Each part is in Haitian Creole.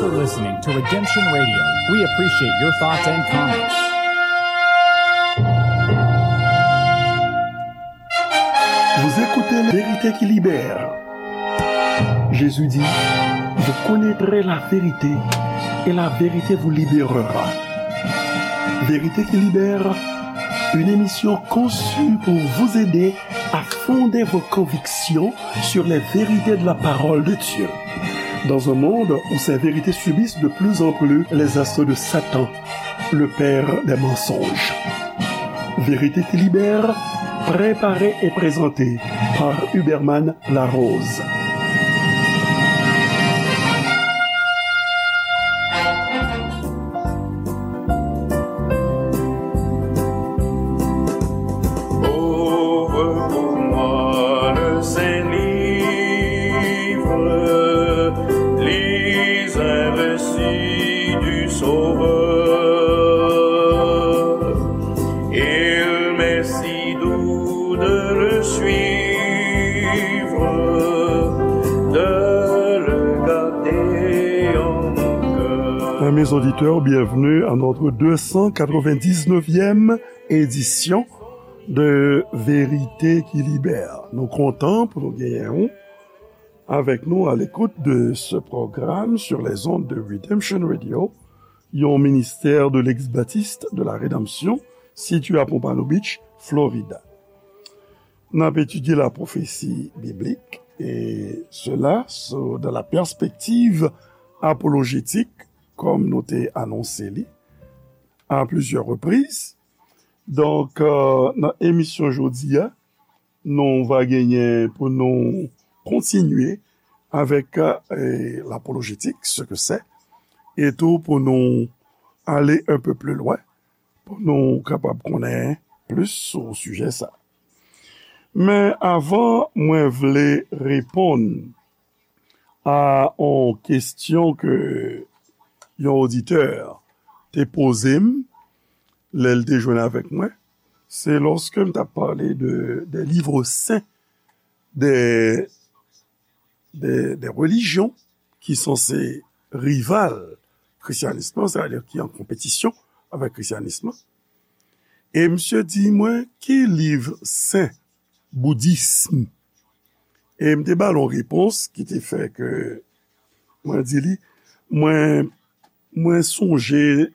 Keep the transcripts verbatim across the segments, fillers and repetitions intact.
You're listening to Redemption Radio. We appreciate your thoughts and comments. Vous écoutez La Vérité qui libère. Jésus dit, vous connaîtrez la vérité et la vérité vous libérera. Vérité qui libère, une émission conçue pour vous aider à fonder vos convictions sur les vérités de la parole de Dieu. Dans un monde où ces vérités subissent de plus en plus les assauts de Satan, le père des mensonges. Vérité qui libère, préparée et présentée par Huberman Larose. Ouvre pour moi le Saint-Livre, lis un récit du Sauveur. Il m'est si doux de le suivre, de le garder en mon cœur. Amis auditeurs, bienvenue à notre deux cent quatre-vingt-dix-neuvième édition de Vérité qui Libère. Nou kontan pou nou genyen w avec nous à l'écoute de ce programme sur les ondes de Redemption Radio, yon ministère de l'Ex-Baptiste de la Rédemption, situé à Pompano Beach, Florida. N ap etidye la pwofesi biblik, e sela sou, dans la perspective apologétique, kòm nou te anonse li à plusieurs reprises. Donk, euh, nan emisyon jodi a, nou va genyen pou nou kontinye avèk, euh, l'apologétique, ce que c'est, e tou pou nou ale un peu plus loin, pou nou kapab konnen plis sou sijè sa. Men avan mwen vle reponn a yon kesyon ke yon oditè te poze m lè l te jwenn avèk mwen, se lòske m t ap pale de, de livres saints, de, de, de religions ki sanse rival krisyanis lan, sètadi ki an konpetisyon avèk krisyanis lan. E misye di mwen, ki liv sen boudism? E m te ba l yon repons ki te fè ke mwen di li, mwen, mwen sonje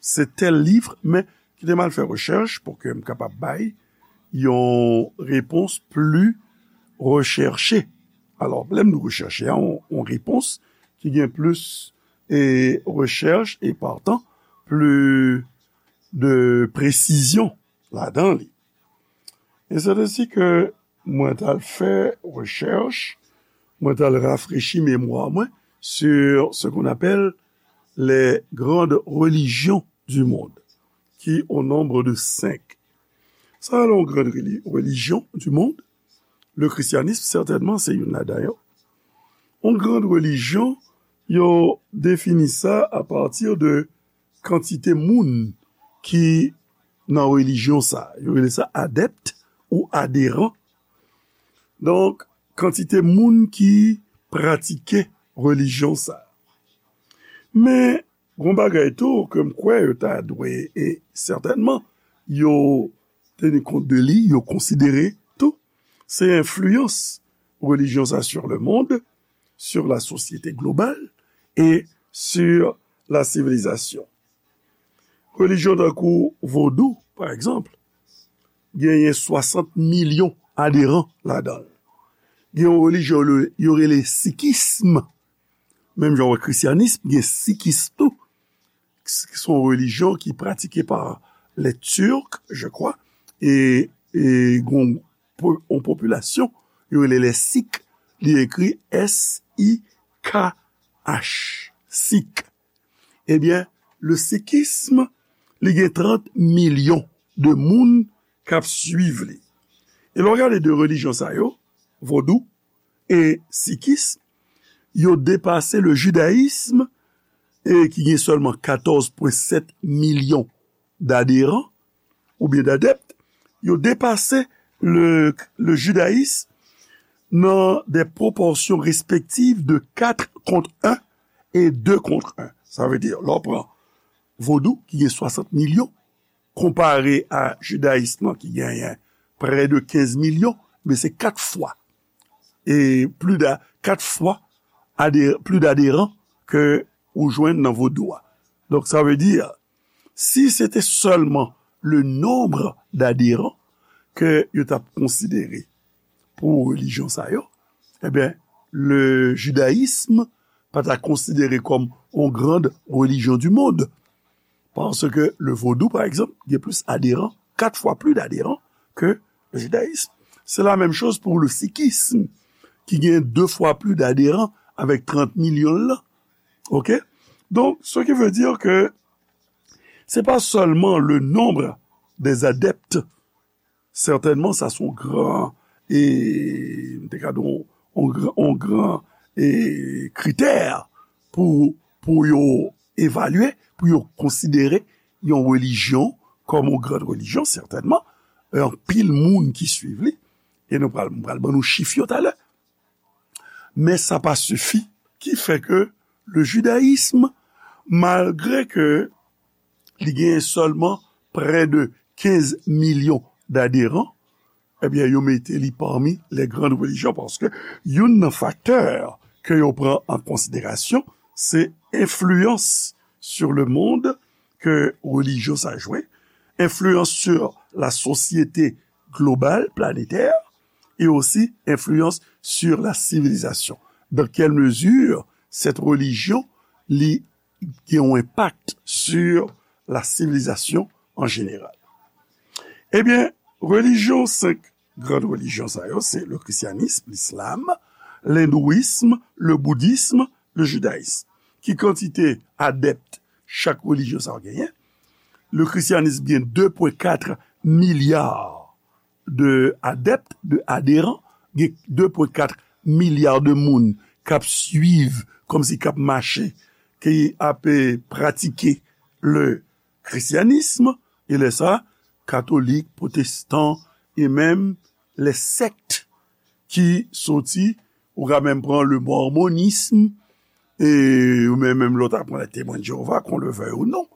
se tèl liv, men kite m al fè rechèch pou ke m kapab bay yon repons pli rechèche. Alò, lè m di rechèche a, yon, yon repons ki gen plis e rechèch e partan pli de presizyon ladan li. E se te si ke mwen t al fè rechèch, mwen t al rafrechi memwa mwen sur ce qu'on appelle les grandes religions du monde, qui au nombre de cinq. Sa, yon grand reli-, religion du monde, le christianisme, sètènman, se youn ladan yo. Yon grand religion, yo defini sa a pati de kantite moun ki nan relijyon sa. Yo rele sa adèpt ou aderan. Donk, kantite moun ki pratike relijyon sa. Men, gon bagay tou ke m kwè yo ta dwe, e sètènman, yo teni kont de li, yo konsidere tou, se enfliyans relijyon sa sur le monde, sur la société globale et sur la civilisation. Relijyon tankou vodou, pa egzanp, genyen swasant milyon aderan ladan l. Gen yon relijyon yo, yo rele sikism, menm jan wè krisyanism, gen sikis tou, ki se yon relijyon ki pratike pa les Turcs, je crois, e, e gon po-, yon popilasyon, yo rele les Sikhs, li ekri S I K H, Sikh. Ebyen, le sikism, li gen trant milyon de moun k ap swiv li. E lè w gade de relijyon sa yo, vodou e sikism, yo depase le jidayism, e ki gen sèlman katòz pwen sèt milyon d'aderan, oubyen d'adèpt, yo depase le, le jidayism nan de pwopòsyon respektiv de kat kont en e de kont en. Sa vle di, lè w pran vodou ki gen swasant milyon, konpare a jidayis lan ki genyen prè de kenz milyon, men se kat fwa. E pli da, kat fwa ade, pli daderan ke ou jwenn nan vodou a. Donk, sa vle di, si se te sèlman le nombre d'adhérents ke yo t ap konsidere pou relijyon sa yo, ebyen, le jidayis pa ta konsidere kòm yon grand religion du monde. Paske le vodou, pa egzanp, gen plis aderan, kat fwa pli daderan ke le jidayis. Se la menm choz pou le sikis, ki gen de fwa pli daderan avèk trant milyon l lan. Oke? Donk, ce qui veut dire que c'est pas seulement le nombre des adeptes, sètènman, sa se yon gran, e, m te ka di yon, yon gran, yon gran, e, kritè pou, pou yo evalye, pou yo konsidere yon relijyon kòm yon gran relijyon, sètènman. E anpil moun ki swiv li, e nou pral, m pral ban nou chif yo talè. Men sa pa sifi, ki fè ke le jidayis, malgre ke li gen sèlman prè de kenz milyon daderan, ebyen, yo mete li pami les grandes religions, paske youn nan faktè ke yo pran an konsiderasyon, se enfliyans sur le monde ke relijyon sa jwe, enfliyans sur la société globale, planétaire, et aussi influence sur la civilisation. Dans quelle mesure cette religion li gen yon enpak sur la civilisation en général? Ebyen, relijyon, senk gran relijyon sa yo, se le christianisme, l'islam, l'hindouisme, le bouddhisme, le judaïsme. Ki kantite adèpt chak relijyon sa yo genyen? Le christianisme gen de pwen kat milya de adèpt, de aderan, gen de pwen kat milya de moun k ap swiv, kòmsi k ap mache, ki ap, eh, pratike le christianisme, e lè sa, katolik, pwotestan, e menm les sectes ki soti, ou ka menm pran le mormonisme, e, ou menm, menm lè w ta pran les Témoins de Jéhovah, qu'on le veuille ou non,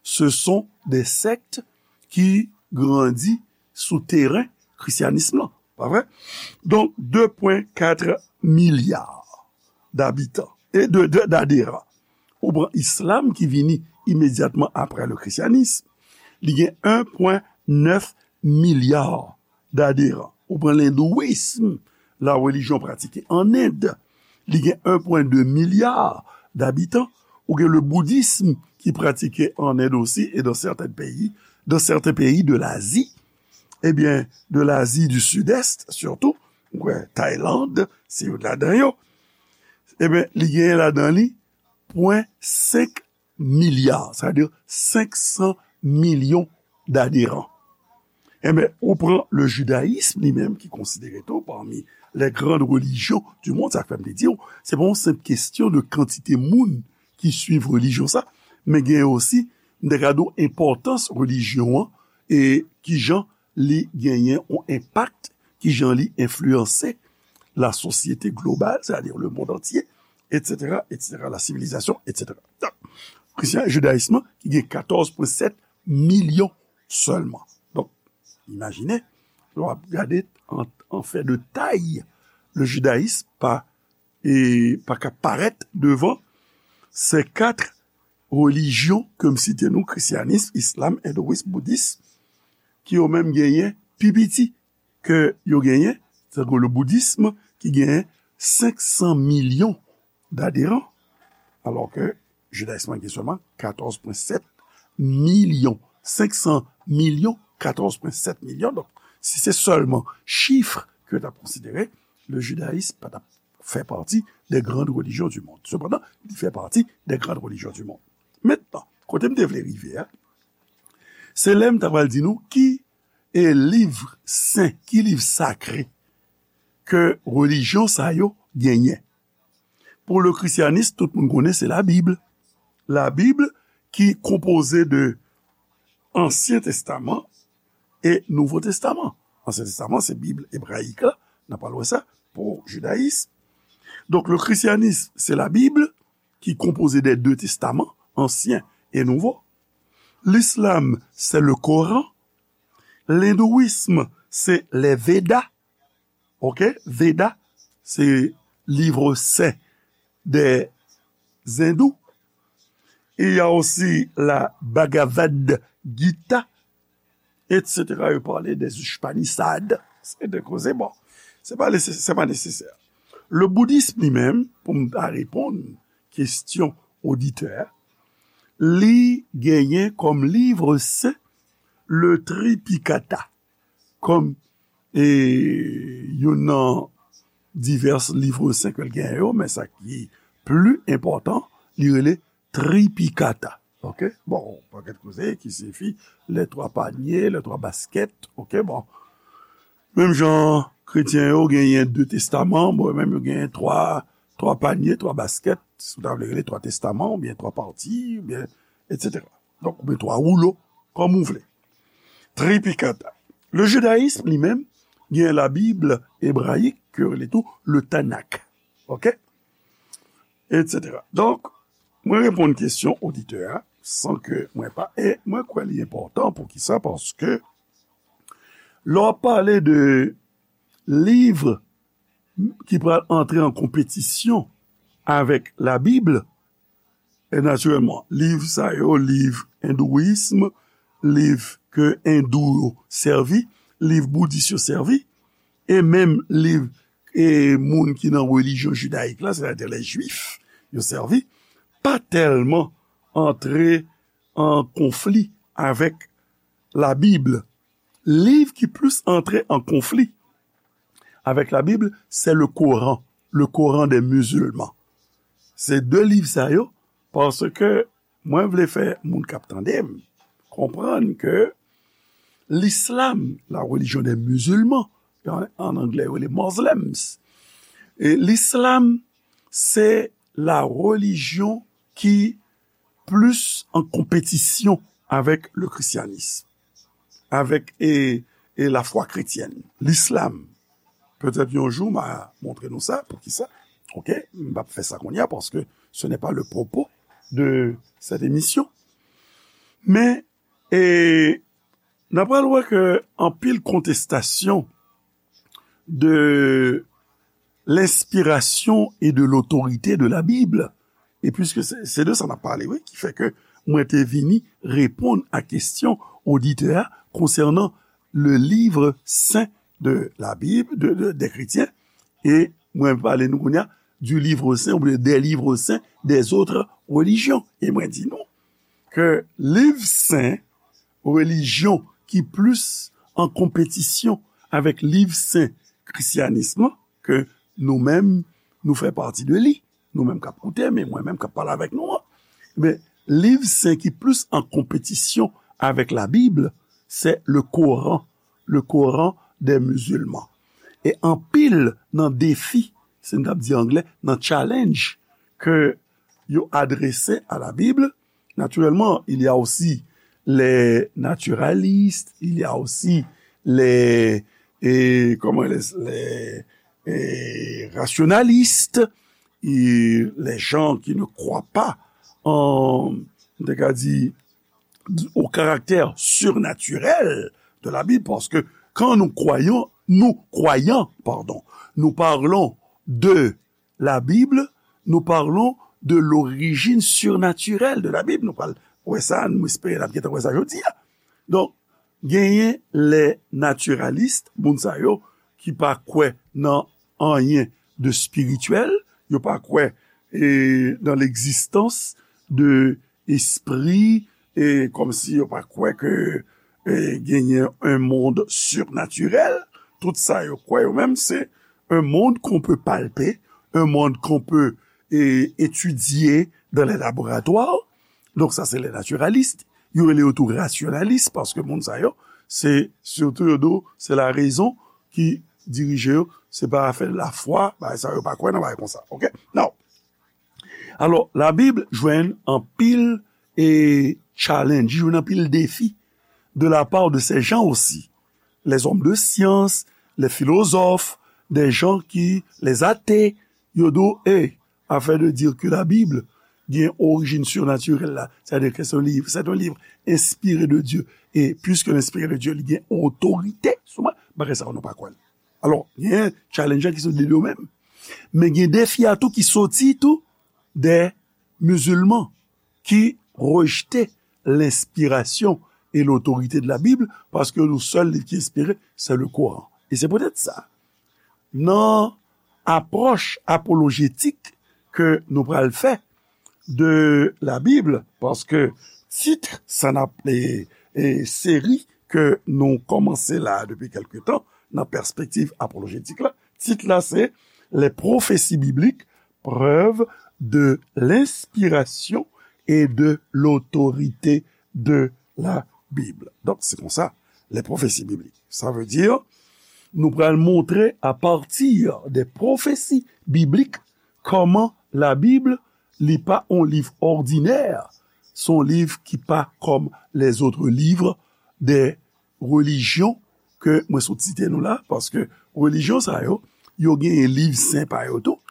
ce sont des sectes ki grandi sou teren krisyanis lan, pa vre? Donk, de pwen kat milya d'abitan e de, de, d'aderan. Ou pran islam ki vini imedyatman apre le christianisme, li gen en pwen nèf milya d'aderan. Ou pran lendouism, la relijyon pratike an End, li gen en pwen de milya d'abitan. Ou gen le boudism ki pratike an End osi e dans certains pays, dans certains pays de l'Asie, ebyen, de l'Asie du Sud-Est surtout, ou wè, Tayland, se youn ladan yo. Ebyen, li genyen ladan li pwen senk milya, sa vle di senk san milyon d'aderan. Ebyen, ou pran le jidayis li menm ki konsidere tou pami les grandes religions du monde, sa k fè m te di w, se pa yon senp kesyon de kantite moun ki swiv relijyon sa, men gen osi, m te ka di w, enpòtans relijyon an e kijan li genyen yon enpak, kijan li enfliyanse la sosyete global, c'est-à-dire le monde entier, et cetera, et cetera, la sivilizasyon, et cetera. Donk, krisyan, jidayis lan, ki gen katòz pwen sèt milyon sèlman. Donk, imajine, lè w ap gade an, an fè de tay, le jidayis pa, e, pa ka parèt devan se kat relijyon ke m site nou, krisyanis, islam, endouis, boudis, ki yo menm genyen pi piti ke yo genyen, tankou le boudism ki genyen senk san milyon d'aderan, alò ke jidayis lan gen sèlman katòz pwen sèt milyon, senk san milyon, katòz pwen sèt milyon. Donk, si se sèlman chif ke yo t ap konsidere, le jidayis pa t ap fè pati des grandes religions du monde. Sepandan, li fè pati des grandes religions du monde. Mentnan, kote m te vle rive a, se lè m ta pral di nou ki e liv sen, ki liv sakre ke relijyon sa yo genyen. Pou le krisyanis, tout moun konnen se Labib. Labib ki konpoze de Ansyen Testaman e Nouvo Testaman. Ansyen Testaman, se Bib ebrayik la, n ap pral wè sa, pou jidayis. Donk, le christianisme, c'est la Bible, ki konpoze de de testaman, ansyen e nouvo. L'islam, c'est le Coran. L'hindouisme, c'est les Védas. Ok? Veda, se livre sen des Hindous. Il y a aussi la Bhagavad Gita, et cetera. Yo pale des Upanishads. Se de koze, bon. Se pa nesesè, se pa nesesè. Le bouddhisme li menm, pou m ta reponn kesyon oditè, li genyen kòm livre sen le Tripikata, kòm e youn nan divès livre sen ke l genyen yo, men sa ki pli enpòtan, li rele Tripikata. Ok? Bon, pakèt koze ki siyifi les trois paniers, les trois baskets. Ok, bon. Menm jan kretyen yo genyen de testaman, bon, menm yo genyen twa, twa panye, twa baskèt, si w ta vle rele twa testaman, oubyen twa pati, oubyen, et cetera. Donk, oubyen twa woulo, kòm ou vle. Tripikata. Le jidayism, li menm, gen la Bib ebrayik, ke yo rele tou le Tanakh. Ok? Et cetera. Donk, mwen reponn kesyon oditè a, san ke mwen pa, e mwen kwè li enpòtan, poukisa? Paske, lè w ap pale de liv ki pral antre an konpetisyon avèk la Bib, e natirèlman, liv sa yo, liv endouyism, liv ke endou yo sèvi, liv boudis yo sèvi, e menm liv e moun ki nan relijyon jidayik la, sètadi lè jwif, yo sèvi, pa tèlman antre an konfli avèk la Bib. Liv ki plis antre an konfli avèk la Bib, se le Koran, le Koran des musulmans. Se de liv sa yo, paske mwen vle fè moun k ap tande m konprann ke l'islam, la religion des musulmans, an, an anglè yo rele Muslims, e l'islam, se la religion ki plis an konpetisyon avèk le christianisme, avèk e, e lafwa kretyèn, l'islam. Petèt yon jou, m a montre nou sa, poukisa. Ok, m p ap fè sa kounye a, paske ce n'est pas le propos de cette émission. Men, e, n a pral wè ke anpil kontestasyon de l'inspiration et de l'autorité de la Bible. E piske se, se de sa n ap pale, wi, ki fè ke mwen te vini reponn a kesyon oditè a konsènan le livre saint de la Bible, de, de, des chrétiens, e mwen pale nou kounye a du livre saint ou des livres saints des autres religions. E mwen di nou ke liv sen relijyon ki plis an konpetisyon avèk liv sen kristyanis lan, ke nou menm, nou fè pati de li. Nou menm k ap koute m, e mwen menm k ap pale avèk nou an. Men, liv sen ki plis an konpetisyon avèk la Bib, se le Koran, le Koran des musulmans. E anpil nan defi, se n t ap di anglè, nan challenge ke yo adrese a la Bib, naturellement, il y a aussi les naturalistes, il y a aussi les, et, comment, les, les, et rationalistes, et les gens qui ne croient pas en, on va dire, au caractère surnaturel de la Bible, parce que quand nous croyons, nous croyons, pardon, nous parlons de la Bible, nous parlons de l'origine surnaturelle de la Bible. Nou pral wè sa, nou espere n ap gentan wè sa jodi a. Donk, genyen les naturalistes, moun sa yo ki pa kwè nan anyen de spirityèl, yo pa kwè e, dans l'existence de espri, e kòmsi yo pa kwè ke e, genyen un monde surnaturel. Tout sa yo kwè yo menm, se un monde qu'on peut palper, un monde qu'on peut e, étudier dans les laboratoires. Donk sa se les naturalistes. Yo rele yo tou rasyonalis, paske moun sa yo, se sitou yo di w, se la rezon ki dirije yo, se pa afè lafwa, bagay sa yo pa kwè nan bagay konsa. Ok? Now, alò, la Bib jwenn anpil e challenge, jwenn anpil defi de la part de ces gens aussi. Les hommes de science, les philosophes, des gens qui, les athées, yo di w, hey, affaire de dire que la Bible, gen orijin sirnatirèl la, sètadi ke se yon liv, se yon liv enspire de Dye, e piske l enspire de Dye, li gen otorite sou mwen, bagay sa yo nou pa kwè l. Alò, gen challenge ki sou de yo menm. Men gen defi a tou ki soti tou de mizilman ki rejte lenspirasyon e lotorite de la Bib, paske nou sèl liv ki enspire, se le Koran. E se poutèt sa, nan apwòch apolojetik ke nou pral fè de la Bib, paske tit sa n ap, e, e, seri ke nou kòmanse la depi kèlke tan, nan pèspektiv apolojetik la, tit la se Les prophéties bibliques, preuve de l'inspiration et de l'autorité de la Bible. Donk, se konsa, les prophéties bibliques. Sa vle di, nou pral montre apati de pwofesi biblik kòman Labib, li pa yon liv òdinè, se yon liv ki pa kòm les autres livres de relijyon ke mwen sot site nou la, paske relijyon sa yo, yo genyen liv sen pa yo tou,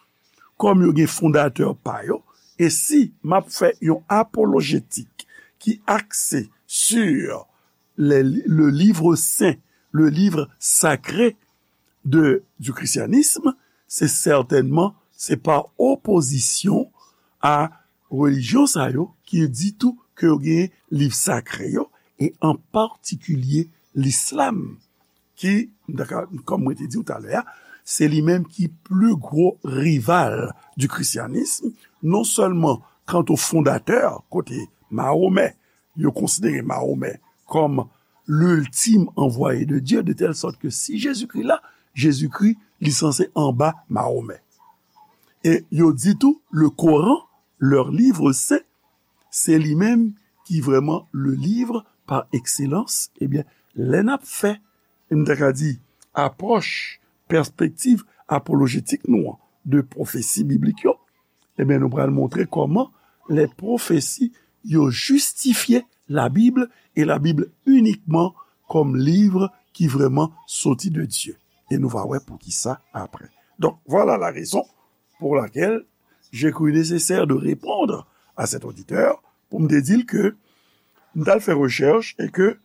kòm yo gen fondatè pa yo, e si m ap fè yon apolojetik ki akse sur le, le livre saint, le livre sacré de, du christianisme, se sètènman, se pa opozisyon a relijyon sa yo ki di tou ke yo gen liv sakre yo, e an patikilye lislam, ki, m ta ka, kòm mwen te di w talè a, se li menm ki pli gwo rival du christianisme, non sèlman kanta fondatè, kote Mahomè, yo konsidere Mahomè kòm l'ultime envoyé de Dieu, de telle sorte que si Jezikri la, Jezikri, li sanse anba Mahomè. E yo di tou, le Coran, leur livre saint, se li menm ki vrèman le livre par excellence. Ebyen, lè n ap fè, m ta ka di, apwòch, pèspektiv apolojetik nou an, de pwofesi biblik yo, ebyen, nou pral montre kòman les prophéties yo jistifye Labib, e Labib inikman kòm liv ki vrèman soti de Dye. E nou va wè poukisa apre. Donc, voilà la raison pour laquelle j'ai cru nécessaire de répondre à cet auditeur pou m te di l ke m t al fè rechèch e ke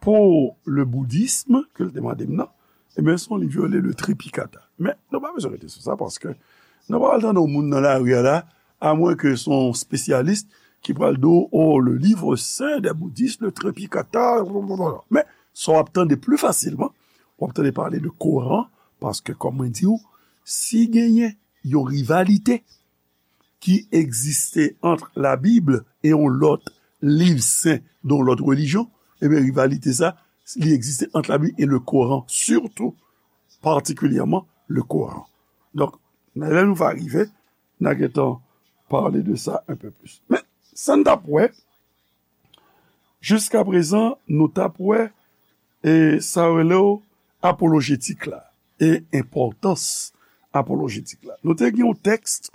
pou le bouddhisme, ke l te mande m nan, ebyen, se yon liv yo rele le Tripikata. Men, nou pa bezwen rete sou sa, paske nou pa pral tande yon moun nan lari a la, amwen ke se yon espesyalis ki pral di w, oh, le livre saint des bouddhistes, le Tripikata, blablabla. Men, sa w ap tande pli fasilman, w ap tande pale de Koran, paske, kòm mwen di w, si genyen yon rivalite ki egziste ant Labib e yon lòt liv sen de yon lòt relijyon, ebyen, rivalite sa, li egziste ant Labib e le Koran, sitou, patikilyèman, le Koran. Donk, nan lè nou va rive, n a gentan pale de sa un peu plus. Men, sa n t ap wè, jiskaprezan, nou t ap wè, e sa yo rele w apolojetik la, e enpòtans apolojetik la. Nou te gen yon tèks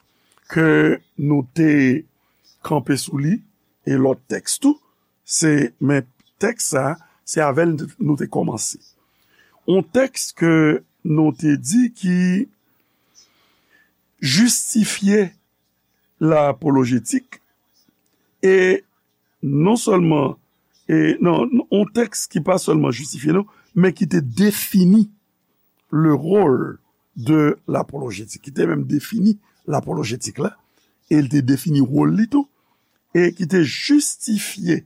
ke nou te kanpe sou li, e lòt tèks tou, se, men tèks sa, se avè l nou te kòmanse. Yon tèks ke nou te di ki jistifye lapolojetik, e non sèlman, e non, yon tèks ki pa sèlman jistifye, non, men ki te defini le rôle de l'apologetique, ki te menm defini lapolojetik la, e l te defini wòl li tou, e ki te jistifye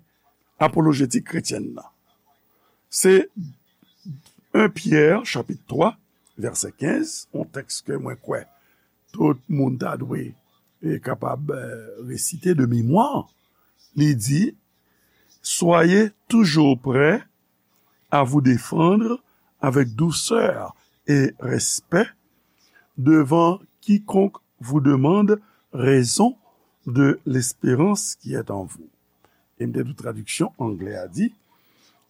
apolojetik kretyèn nan. Se un Pyè, chapit twa, vèsè kenz, yon tèks ke mwen kwè tout moun ta dwe, e, kapab, e, resite de memwa. Li di, Soyez toujours prêts à vous défendre avec douceur et respect devant quiconque vous demande raison de l'espérance qui est en vous. E m te di w tradiksyon anglè a di,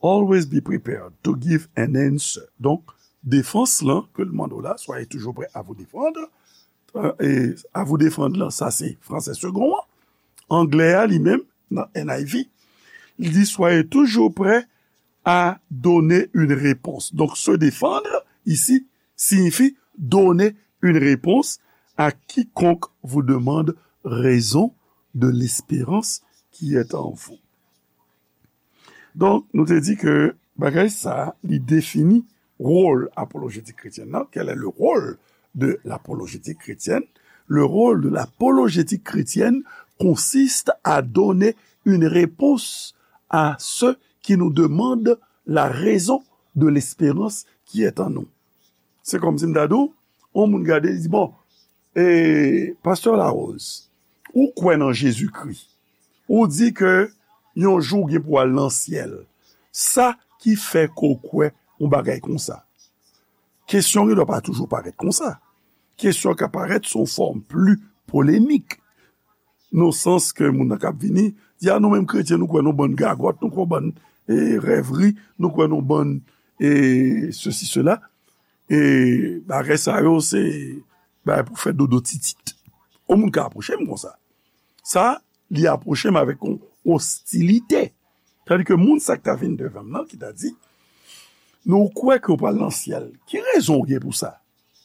Always be prepared to give an answer. Donk, defans lan ke l mande w la, soyez toujours prêts à vous défendre. E, à vous défendre lan, sa se fransè segon an. Anglè a li menm, nan N I V, li di, Soyez toujours prêts à donner une réponse. Donc, se défendre ici signifie donner une réponse à quiconque vous demande raison de l'espérance qui est en vous. Donk, nou te di ke bagay sa a, li defini wòl apolojetik kretyèn nan. Quel est le rôle de l'apologétique chrétienne? Le rôle de l'apologétique chrétienne consiste à donner une réponse à ceux qui nous demandent la raison de l'espérance qui est en nous. Se kòmsi m ta di w, yon moun gade, li di, bon, e, Pastè Larose, ou kwè nan Jezikri? Ou di ke yon jou w gen pou w al nan syèl. Sa ki fè ke w kwè yon bagay konsa? Kesyon gen dwa pa toujou parèt konsa. Kesyon ka parèt sou yon fòm pli polemik. Nan sans ke moun nan k ap vini, di, a, nou menm kretyen, nou kwè nan bann gagòt, nou kwè bann, e, rèvri, nou kwè nan bann, e, sesi, sela. E bagay sa yo, se bagay pou fè dodo titit. Yon moun ka apwoche m konsa. Sa, li apwoche m avèk yon ostilite. Tandi ke moun sa k ta vin devan m nan, ki ta di, nou kwè ke w pral nan syèl. Ki rezon w gen pou sa?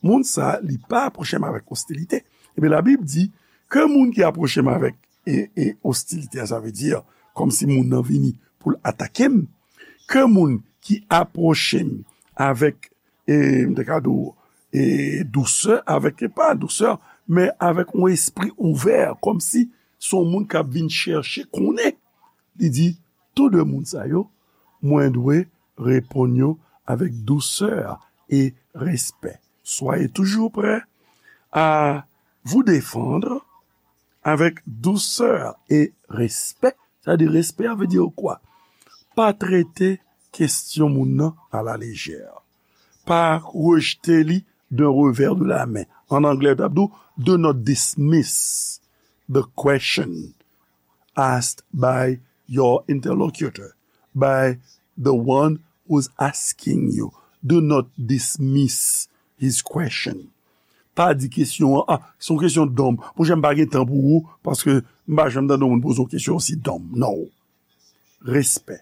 Moun sa, li pa apwoche m avèk ostilite. Ebyen, Labib di ke moun ki apwoche m avèk e, e ostilite a, sa vle di, kòmsi moun nan vini pou l atake m, ke moun ki apwoche m avèk, e, m te ka di w, e, dousè, avèk, e pa dousè, men avèk yon espri ouvè, kòmsi se yon moun k ap vin chèche konnen. Li di, tou de moun sa yo, mwen dwe reponn yo avec douceur et respect. Soyez toujours prêts à vous défendre avec douceur et respect. Sa di respè a vle di kwa? Pa trete kesyon moun nan a la lejè. Pa rejte li d'un revers de la main. An anglè, yo t ap di w, do not dismiss the question asked by your interlocutor, by the one who's asking you. Do not dismiss his question. Pa di kesyon an, a, se yon kesyon dòm. Monchè, m pa gen tan pou ou, paske m pa janm tande yon moun poze yon kesyon osi dòm. Non. Respè.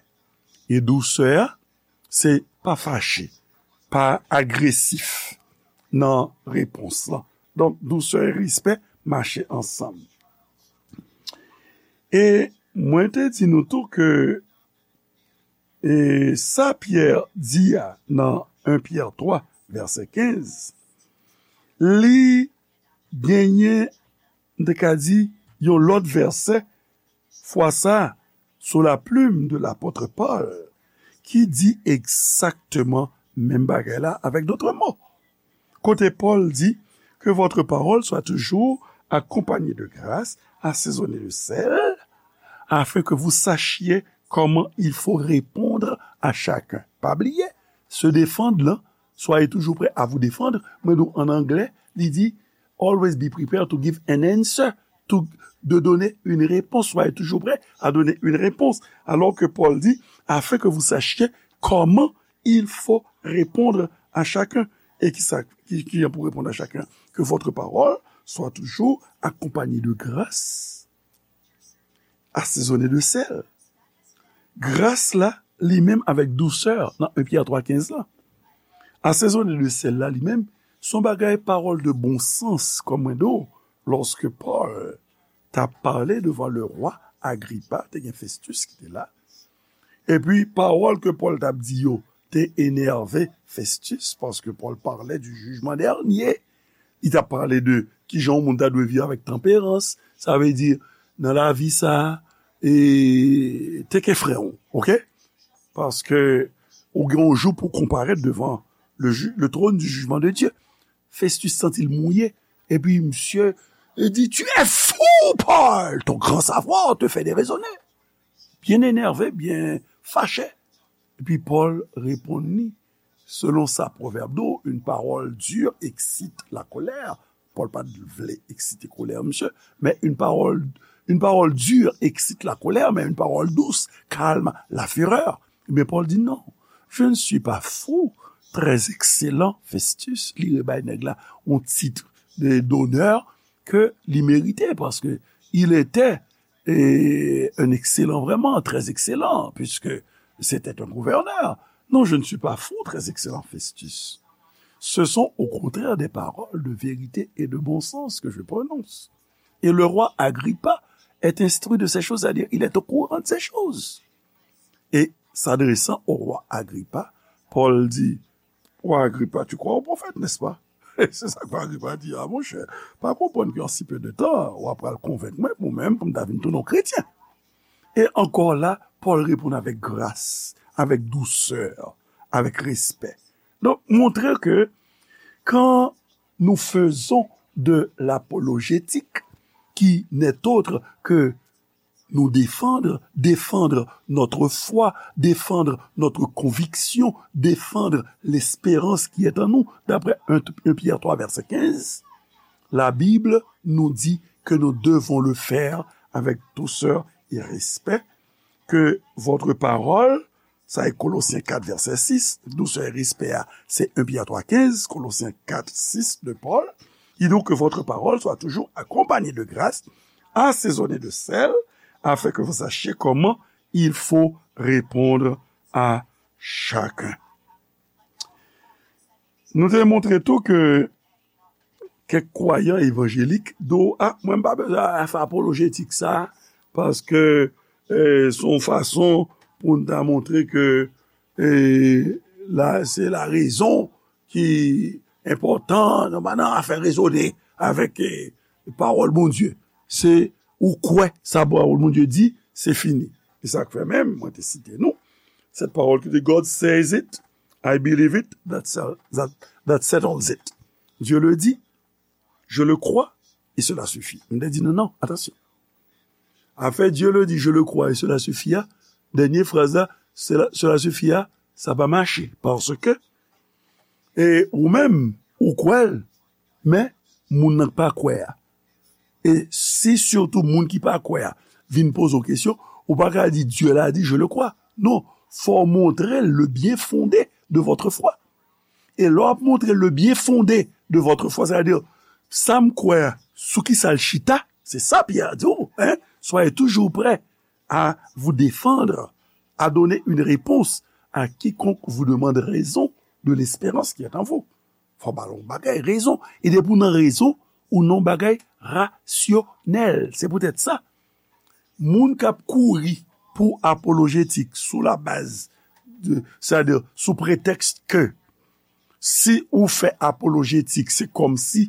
E dousè a, se pa fache, pa agresif nan repons lan. Donk, dousè e respè mache ansanm. E mwen te di nou tou ke, e, sa Pyè di a nan en Pyè twa, vèsè kenz, li genyen, m te ka di, yon lòt vèsè, fwa sa, sou la plume de l'apôtre Paul, ki di egzakteman menm bagay la, avec d'autres mots. Kote Pòl di, que votre parole soit toujours accompagnée de grâce, assaisonnée de sel, afin que vous sachiez comment il faut répondre à chacun. Pa bliye, se defann lan, soyez toujours prêts à vous défendre. Mwen di w an anglè, li di, always be prepared to give an answer, to, de donner une réponse. Soyez toujours prêts à donner une réponse. Alors que Paul dit, afin que vous sachiez comment il faut répondre à chacun. E ki sa, ki, ki jan pou reponn a chacun? Que votre parole soit toujours accompagnée de grâce, assaisonnée de sel. Gras la, li menm avèk dousè nan en Pyè twa kenz la. Assaisonnée de sel la, li menm, se yon bagay pawòl de bon sans, kòm mwen di w, lòske Pòl t ap pale devan le roi Agripa, te gen Festus ki te la. Epi, pawòl ke Pòl t ap di yo te enève Festus, paske Pòl pale du jugement dernier. Li t ap pale de kijan yon moun ta dwe viv avèk tanperans. Sa vle di, nan lavi sa a, e, take care frè w, oke? Paske ou gen yon jou pou konparèt devan le ju-, le trône du jugement de Dieu. Festus santi l mouye. Epi misye, li di, tu es fou, Paul, ton grand savoir te fait déraisonner. Byen enève, byen fache. Epi Pòl reponn li, selon sa pwovèb di w, une parole dure excite la colère. Pòl pa t vle eksite kolè misye, men une parole, une parole dure excite la colère, mais une parole douce calme la fureur. Men Pòl di non, je ne suis pas fou, très excellent Festus, li rebay nèg la yon tit de, d'honneur ke li merite, paske il était, e, un excellent, vraiment très excellent, puisque c'était un gouverneur. Non, je ne suis pas fou, très excellent Festus. Ce sont au contraire des paroles de vérité et de bon sens que je prononce. Et le roi Agrippa est instruit de ces choses, c'est-à-dire il est au courant de ces choses. Et s'adressant au roi Agrippa, Paul dit, Roi Agrippa, tu crois au prophète, n'est-ce pas? Se sa ke Agrippa di, a monchè, pa konprann ke an si pe de tan, w ap pral konvenk mwen pou mwen menm pou m ta vin tounen yon kretyen. E ankò la, Pòl reponn avèk gras, avèk dousè, avèk respè. Donk, montre ke quand nous faisons de l'apologétique, qui n'est autre que nous défendre, défendre notre foi, défendre notre conviction, défendre l'espérance qui est en nous, d'après un, un Pierre trois, verset quinze, la Bible nous dit que nous devons le faire avec douceur et respect, que votre parole, sa e Kolosyen kat, vèsè sis, dousè e respè a, se un Pierre trois quinze, Kolosyen kat sis de Paul, ki di ke votre parole soit toujours accompagnée de grâce, assaisonnée de sel, afin que vous sachiez comment il faut répondre à chacun. Nou te montre tou ke kèk kwayan evanjelik di w, a, mwen m pa bezwen fè apolojetik sa, paske, eh, se yon fason pou n ta montre ke, eh, la, se larezon ki enpòtan, nou pa nan afè rezone avèk, eh, pawòl Bondye. Se ou kwè sa pawòl Bondye di, se fini. E sa k fè menm, mwen te site nou, cette parole ki di, God says it, I believe it, that, sel- that, that settles it. Dieu le dit, je le crois, et cela suffit. M te di, non, non, atansyon. Afè Dieu le dit, je le crois, et cela suffit a, dènye fraz la, cela, cela suffit a, sa pa mache. Paske, e ou menm, ou kwè l, men moun nan k pa kwè a. E si sitou moun ki pa kwè a vin poze w kesyon, ou pa ka di, Dieu l'a dit, je le crois. Non, fò w montre l le bien fondé de votre foi. E lè w ap montre le bien fondé de votre foi, sa vle di, sa m kwè a, sou ki sa l chita, se sa Pyè di w, hein, soyez toujours prêts à vous défendre, à donner une réponse à quiconque vous demande raison de l'espérance qui est en vous. Fò ba l yon bagay, rezon. E depi w nan rezon, ou nan yon bagay rasyonèl. Se poutèt sa, moun k ap kouri pou apolojetik sou la baz de, sètadi sou pretèks ke si ou fè apolojetik, se kòmsi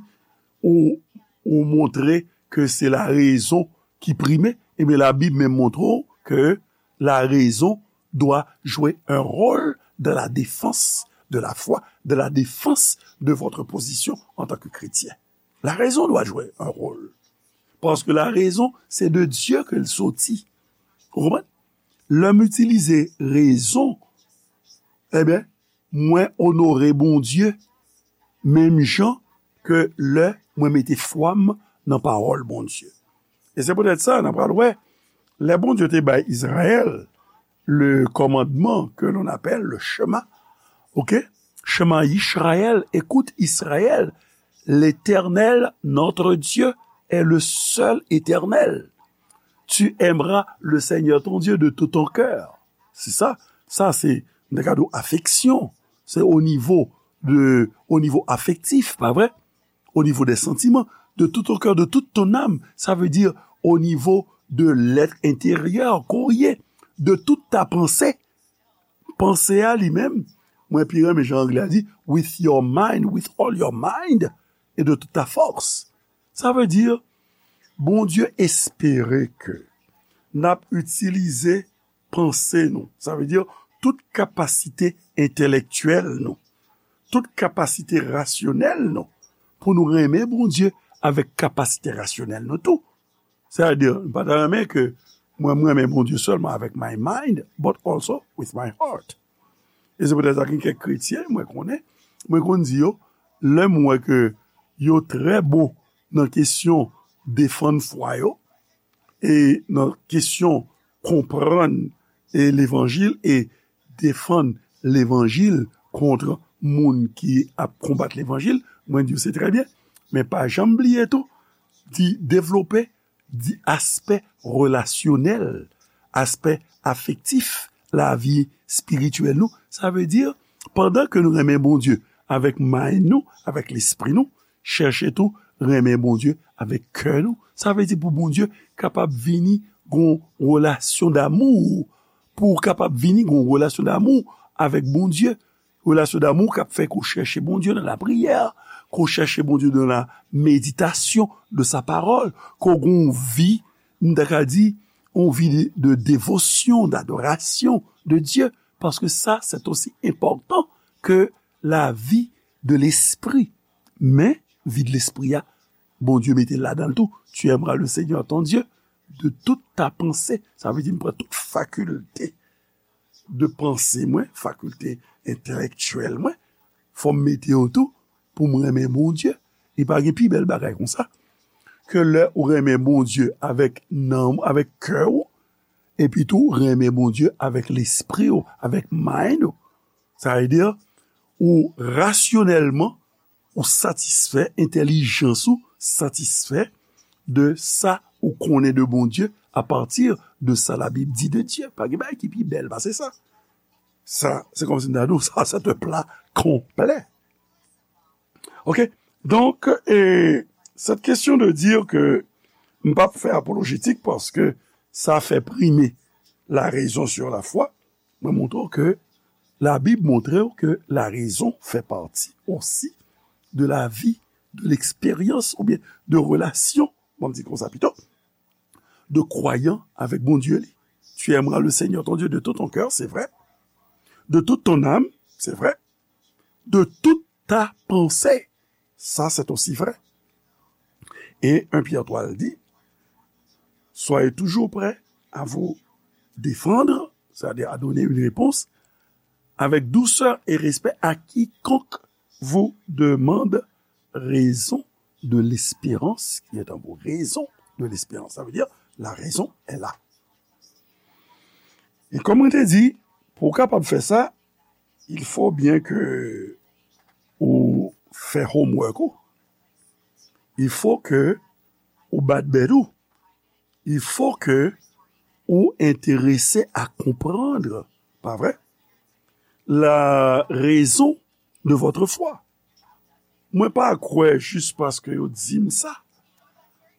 ou, ou montre ke se larezon ki prime, ebyen Labib menm montre w ke la raison doit jouer un rôle dans la défense de la foi, dans la défense de votre position en tant que chrétien. La raison doit jouer un rôle. Paske la rezon, se de Dye ke l soti. Ou konprann? Lè m itilize rezon, ebyen, mwen onore Bondye menm jan ke lè mwen mete fwa m nan pawòl Bondye. E se poutèt sa, n a pral wè, lè Bondye te bay Izrayèl le commandement que l'on appelle le Shema, ok? Shema Yisrael, écoute Israël, l'Éternel, notre Dieu, est le seul éternel. Tu aimeras le Seigneur ton Dieu de tout ton cœur. Se sa, sa se nan kad afeksyon, se o nivo de, o nivo afektif, pa vre? Au niveau des sentiments, de tout ton cœur, de toute ton âme. Sa vle di, au niveau de l'être intérieur, kourye, de toute ta pensée. Panse a li menm, mwen pi renmen jan anglè a di, with your mind, with all your mind, et de toute ta force. Sa vle di, Bondye espere ke n ap itilize panse nou. Sa vle di tout kapasite entèlektyèl nou, tout kapasite rasyonèl nou, pou nou renmen Bondye avèk kapasite rasyonèl nou tou. Sètadi, m pa ta renmen ke mwen, mwen renmen Bondye sèlman avèk my mind, but also with my heart. E se poutèt sa gen kèk kretyen, mwen konnen, mwen konn di yo, lè m wè ke yo trè bon nan kesyon defann fwa yo, e nan kesyon konprann e levanjil e defann levanjil kont moun ki ap konbat levanjil, mwen di yo se trè byen. Men pa janm bliye tou, di devlope di aspè relasyonèl, aspè afektif lavi espirityèl nou. Sa vle di, pandan ke nou renmen Bondye avèk mind nou, avèk lespri nou, chèche tou renmen Bondye avèk kè nou, Sa vle di pou Bondye kapab vini gon relasyon damou. Pou w kapab vini gon relasyon damou avèk Bondye. Relasyon damou k ap fè ke w chèche Bondye nan lapriyè, ke w chèche Bondye nan la méditation de sa parole, ke w gen yon vi, m ta ka di, yon vi de, de dévotion, d'adoration de Dieu, paske sa, c'est aussi important que la vie de l'esprit. Men, vi de lespri a, Bondye mete l ladan l tou. Tu aimeras le Seigneur ton Dieu de toute ta pensée. Sa vle di m pran tout fakilte de panse mwen, fakilte entèlektyèl mwen, fò m mete yo tou pou m renmen Bondye. Li pa gen pi bèl bagay konsa ke lè ou renmen Bondye avèk nanm, avèk kè w, epi tou renmen Bondye avèk lespri w, avèk mind ou. Sa vle di, ou rasyonèlman, ou satisfè, entèlijans ou satisfè de sa ou konnen de Bondye apati de sa Labib di de Dye. Pa gen bagay ki pi bèl pase sa. Sa, se kòmsi m ta di w, sa, c'est un plat complet. Ok? Donk, e, cette question de dire que m p ap fè apolojetik paske sa fè prime la raison sur la foi, mwen montre w ke Labib montre w ke la raison fait partie aussi de la vie, de l'expérience, oubyen de relasyon, bon, m di konsa pito, de kwayan avèk Bondye li. Tu aimeras le Seigneur ton Dieu de tout ton cœur, c'est vrai. De toute ton âme, c'est vrai. De toute ta pensée, ça c'est aussi vrai. Et un Pierre trois dit, soyez toujours prêts à vous défendre, c'est-à-dire à donner une réponse avec douceur et respect à quiconque vous demande raison de l'espérance qui est en vous. Raison de l'espérance, ça veut dire la raison est là. E kòm mwen te di, pou w kapab fè sa, il faut bien que ou fè homework ou. Il faut que ou bat bèt ou. Il faut que ou enterese a konprann, pa vre? La raison de votre foi. Mwen pa kwè jis paske yo di m sa.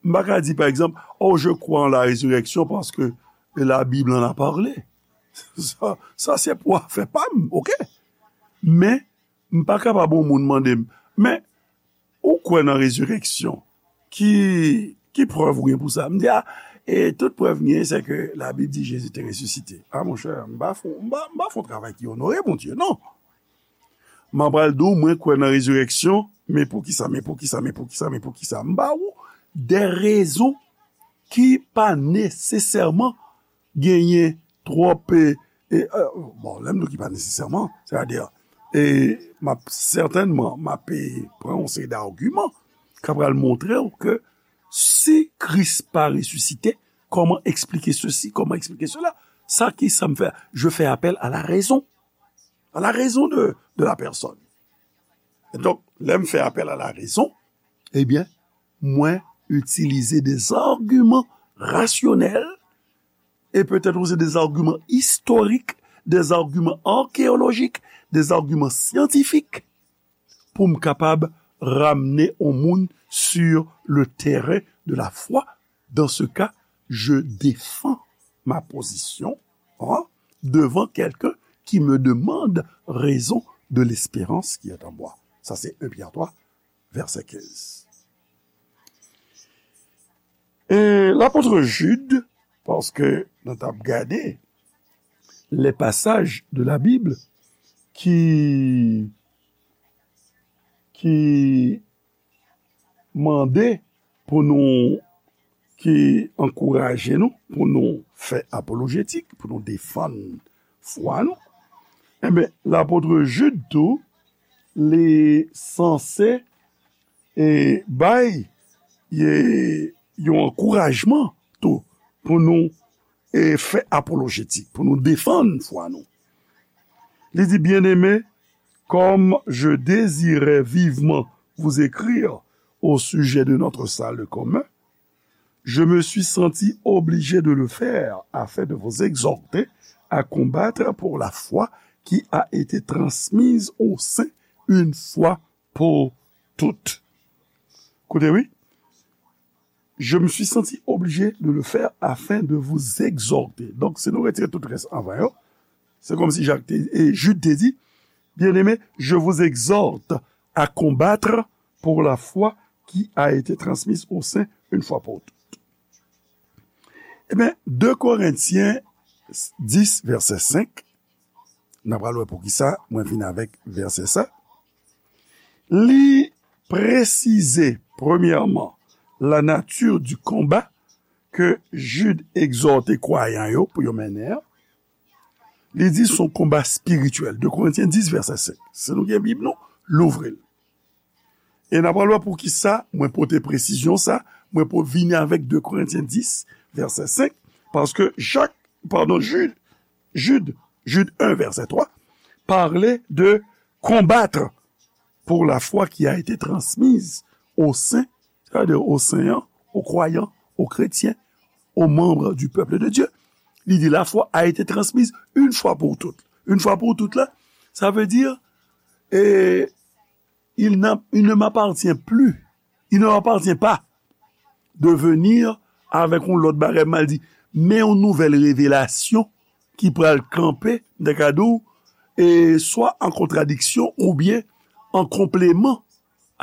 M pa ka di, pa egzanp, oh, je crois en la résurrection parce que la Bible en a parlé. Sa, sa se pou afè pa m, ok? Men, m pa kapab yon moun mande m, men, ou kwè nan rezireksyon? Ki, ki prèv ou gen pou sa? M di, a, e tout prèv m gen, se ke Labib di Jezi te resisite. A, monchè, m pa fè, m pa, m pa fè yon travay ki onore Bondye, non. M ap pral di w, mwen kwè nan rezireksyon, men poukisa, men poukisa, men poukisa, men poukisa? M ba ou de rezon ki pa nesesèman genyen twòp, e, e, e, bon, lè m di w ki pa nesesèman, sètadi, e, m ap sètènman, m ap, e, pran yon seri d'agiman k ap pral montre w ke si Kris pa resisite, kòman eksplike sesi, kòman eksplike sela? Sa ki sa m fè? Je fais appel à la raison. À la raison de, de la personne. Donk, lè m fè apèl a la rezon, ebyen, mwen itilize des arguments rationnels et peut-être aussi des arguments historiques, des arguments archéologiques, des arguments scientifiques pou m kapab ramne yon moun sur le terrain de la foi. Dans ce cas, je défends ma position, hein, devant quelqu'un qui me demande raison de l'espérance qui est en moi. Sa se un Pyè twa, vèsè kenz. E lapot Jid, paske nou t ap gade les passages de la Bible ki, ki mande pou nou, ki ankouraje nou pou nou fè apolojetik, pou nou defann fwa nou, enben, lapot Jid tou, li sanse, e, bay, e, yon ankourajman tou pou nou, e, fè apolojetik, pou nou defann fwa nou. Li di, bien-aimés, comme je désirais vivement vous écrire au sujet de notre salut commun, je me suis senti obligé de le faire afin de vous exhorter à combattre pour la foi qui a été transmise aux saints une fois pour toutes. Koute, wi. Je me suis senti obligé de le faire afin de vous exhorter. Donk, si nou retire tout rès anvan yo, se kòmsi Jak te, e Jid te di, Bien-aimés, je vous exhorte à combattre pour la foi qui a été transmise aux saints une fois pour toutes. Ebyen, de Korentyen dis, vèsè senk, n a pral wè poukisa mwen vin avèk vèsè sa. Li presize, premyèman, la nature du combat ke Jid egzòte kwayan yo pou yo mennen an. Li di se yon konba espirityèl. De Korentyen dis, vèsè senk. Si nou gen Bib nou, louvri l. E n a pral wè poukisa mwen pote presizyon sa, mwen pou vini avèk de Korentyen dis, vèsè senk, paske Jak, padon, Jid, Jid, Jid en, vèsè twa, pale de combattre pour la foi qui a été transmise aux saints, c'est-à-dire aux saints, aux croyants, aux chrétiens, aux membres du peuple de Dieu. Li di la foi a été transmise une fois pour toutes. Une fois pour toutes la, sa vle di, e, il n'a, il ne m'appartient plus, il ne m'appartient pas de venir avèk yon lòt bagay, m al di, men yon nouvèl revelasyon ki pral kanpe, m ta ka di w, e swa an kontradiksyon oubyen an konpleman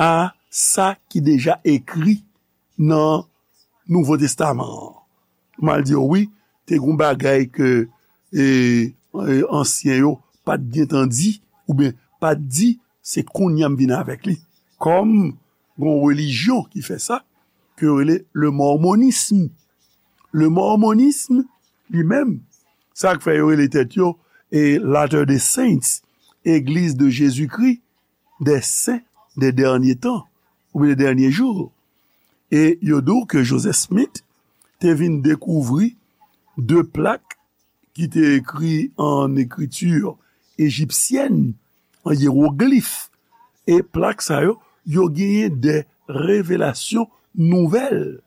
a sa ki deja ekri nan Nouvo Testaman an. M al di w, wi, te gen yon bagay ke, e, e, ansyen yo pa t gentan di, oubyen pa t di, se kounye a m vin avèk li. Kòm gen yon relijyon ki fè sa, ke yo rele le mormonisme. Le mormonisme, li menm, sa k fè yo rele tèt yo, e, Latter-day Saints, Église de Jésus-Christ des Saints des Derniers Temps, oubyen des Derniers Jours. E yo di w ke Joseph Smith te vin dekouvri de plak ki te ekri an ekriti ejipsyèn, an yewoglif. E plak sa yo, yo genyen de revelasyon nouvèl.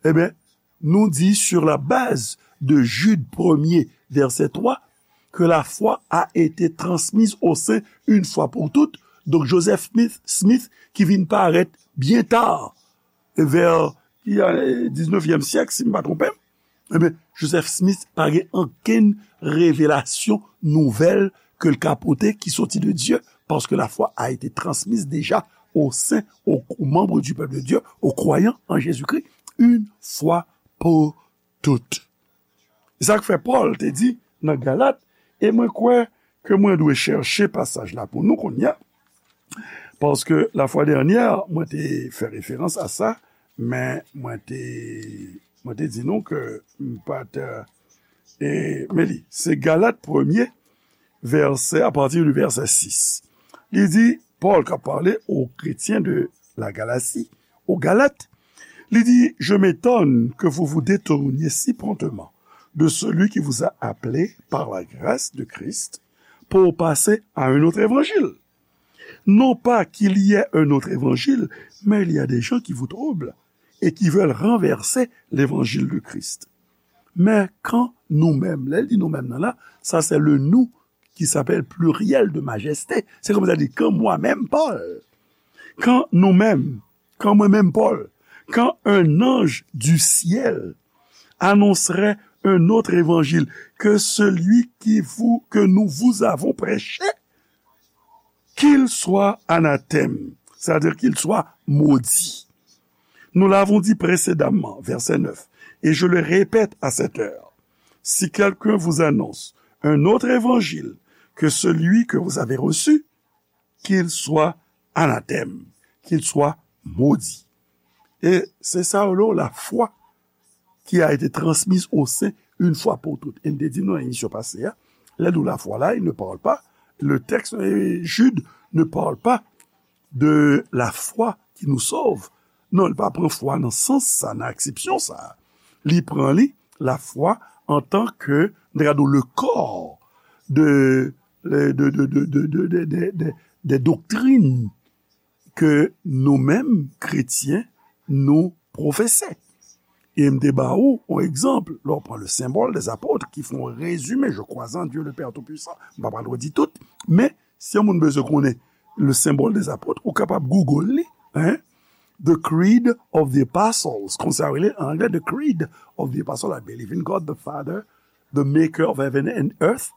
Ebyen, nous dit sur la base de Jude premier, verset trois, que la foi a été transmise aux saints une fois pour toutes. Donk, Joseph Smith, Smith ki vin parèt byen ta, vè, ki, e, diznèvyèm syèk, si m pa twonpe m, ebyen, Joseph Smith pa gen okenn revelasyon nouvèl ke l ka pote ki soti de Dye, parce que la foi a été transmise déjà aux saints, aux, aux membres du peuple de Dieu, aux croyants en Jésus-Christ, une fois pour toutes. E sa k fè Pòl te di nan Galat, e mwen kwè ke mwen dwe chèche pasaj la pou nou kounye a, paske lafwa dènyè, mwen te fè referans a sa, men mwen te, mwen te di nou ke m pa t, e, men li, se Galat premye, vèsè, apati di vèsè sis. Li di, Pòl k ap pale aux chrétiens de la Galatie, aux Galates, li di, Je m'étonne que vous vous détourniez si promptement de celui qui vous a appelé par la grâce de Christ pour passer à un autre évangile. Non pas qu'il y ait un autre évangile, mais il y a des gens qui vous troublent et qui veulent renverser l'évangile de Christ. Men kan nou menm, lè l di nou menm nan la, sa se le nous qui s'appelle pluriel de majesté. Se kòm sa di, quand moi-même, Paul, quand nous-mêmes, quand moi-même, Paul, quand un ange du ciel annoncerait un autre évangile que celui qui vous, que nous vous avons prêché, qu'il soit anathème, c'est-à-dire qu'il soit maudit. Nous l'avons dit précédemment, verset neuf, et je le répète à cette heure, si quelqu'un vous annonce un autre évangile que celui que vous avez reçu, qu'il soit anathème, qu'il soit maudit. E se sa yo rele la foi qui a été transmise aux saints une fois pour toutes. E m te di nou nan emisyon pase a, lè nou la foi la, il ne parle pas, le texte, e, Jude ne parle pas de la foi qui nous sauve. Non, li pa pran fwa nan sans sa, nan aksepsyon sa. Li pran li, la foi, en tant que, regardons, le corps de, de, de, de doctrine ke nou menm, kretyen, nou pwofese. E m te ba ou yon egzanp, lè w pran le symbole des apôtres, ki fè yon rezime, je crois en Dieu le Père Tout-Puissant, m pa pral redi tout, men si yon moun bezwen konnen le symbole des apôtres, ou kapab Google li, hein, The Creed of the Apostles, konsa yo rele an anglè, The Creed of the Apostles, I believe in God the Father, the maker of heaven and earth,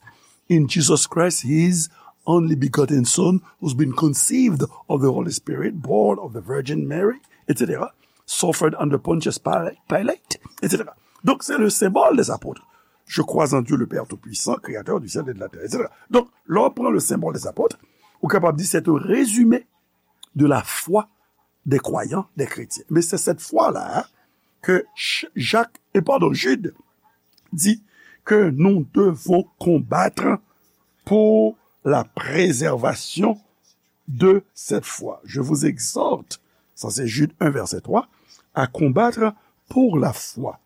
in Jesus Christ, his only begotten Son, who's been conceived of the Holy Spirit, born of the Virgin Mary, et cetera, suffered under Pontius Pilate, et cetera. Donk, se le symbole des apôtres. Je crois en Dieu le Père Tout-Puissant, créateur du ciel et de la terre, et cetera. Donk, lè w pran le symbole des apôtres, ou kapab di c'est un résumé de la foi des croyants, des chrétiens. Mais c'est cette foi-là, hein, que Ch- Jacques, et pardon, Jude dit que nous devons combattre pour la préservation de cette foi. Je vous exhorte, ça c'est Jude un, verset trois, à combattre pour la foi,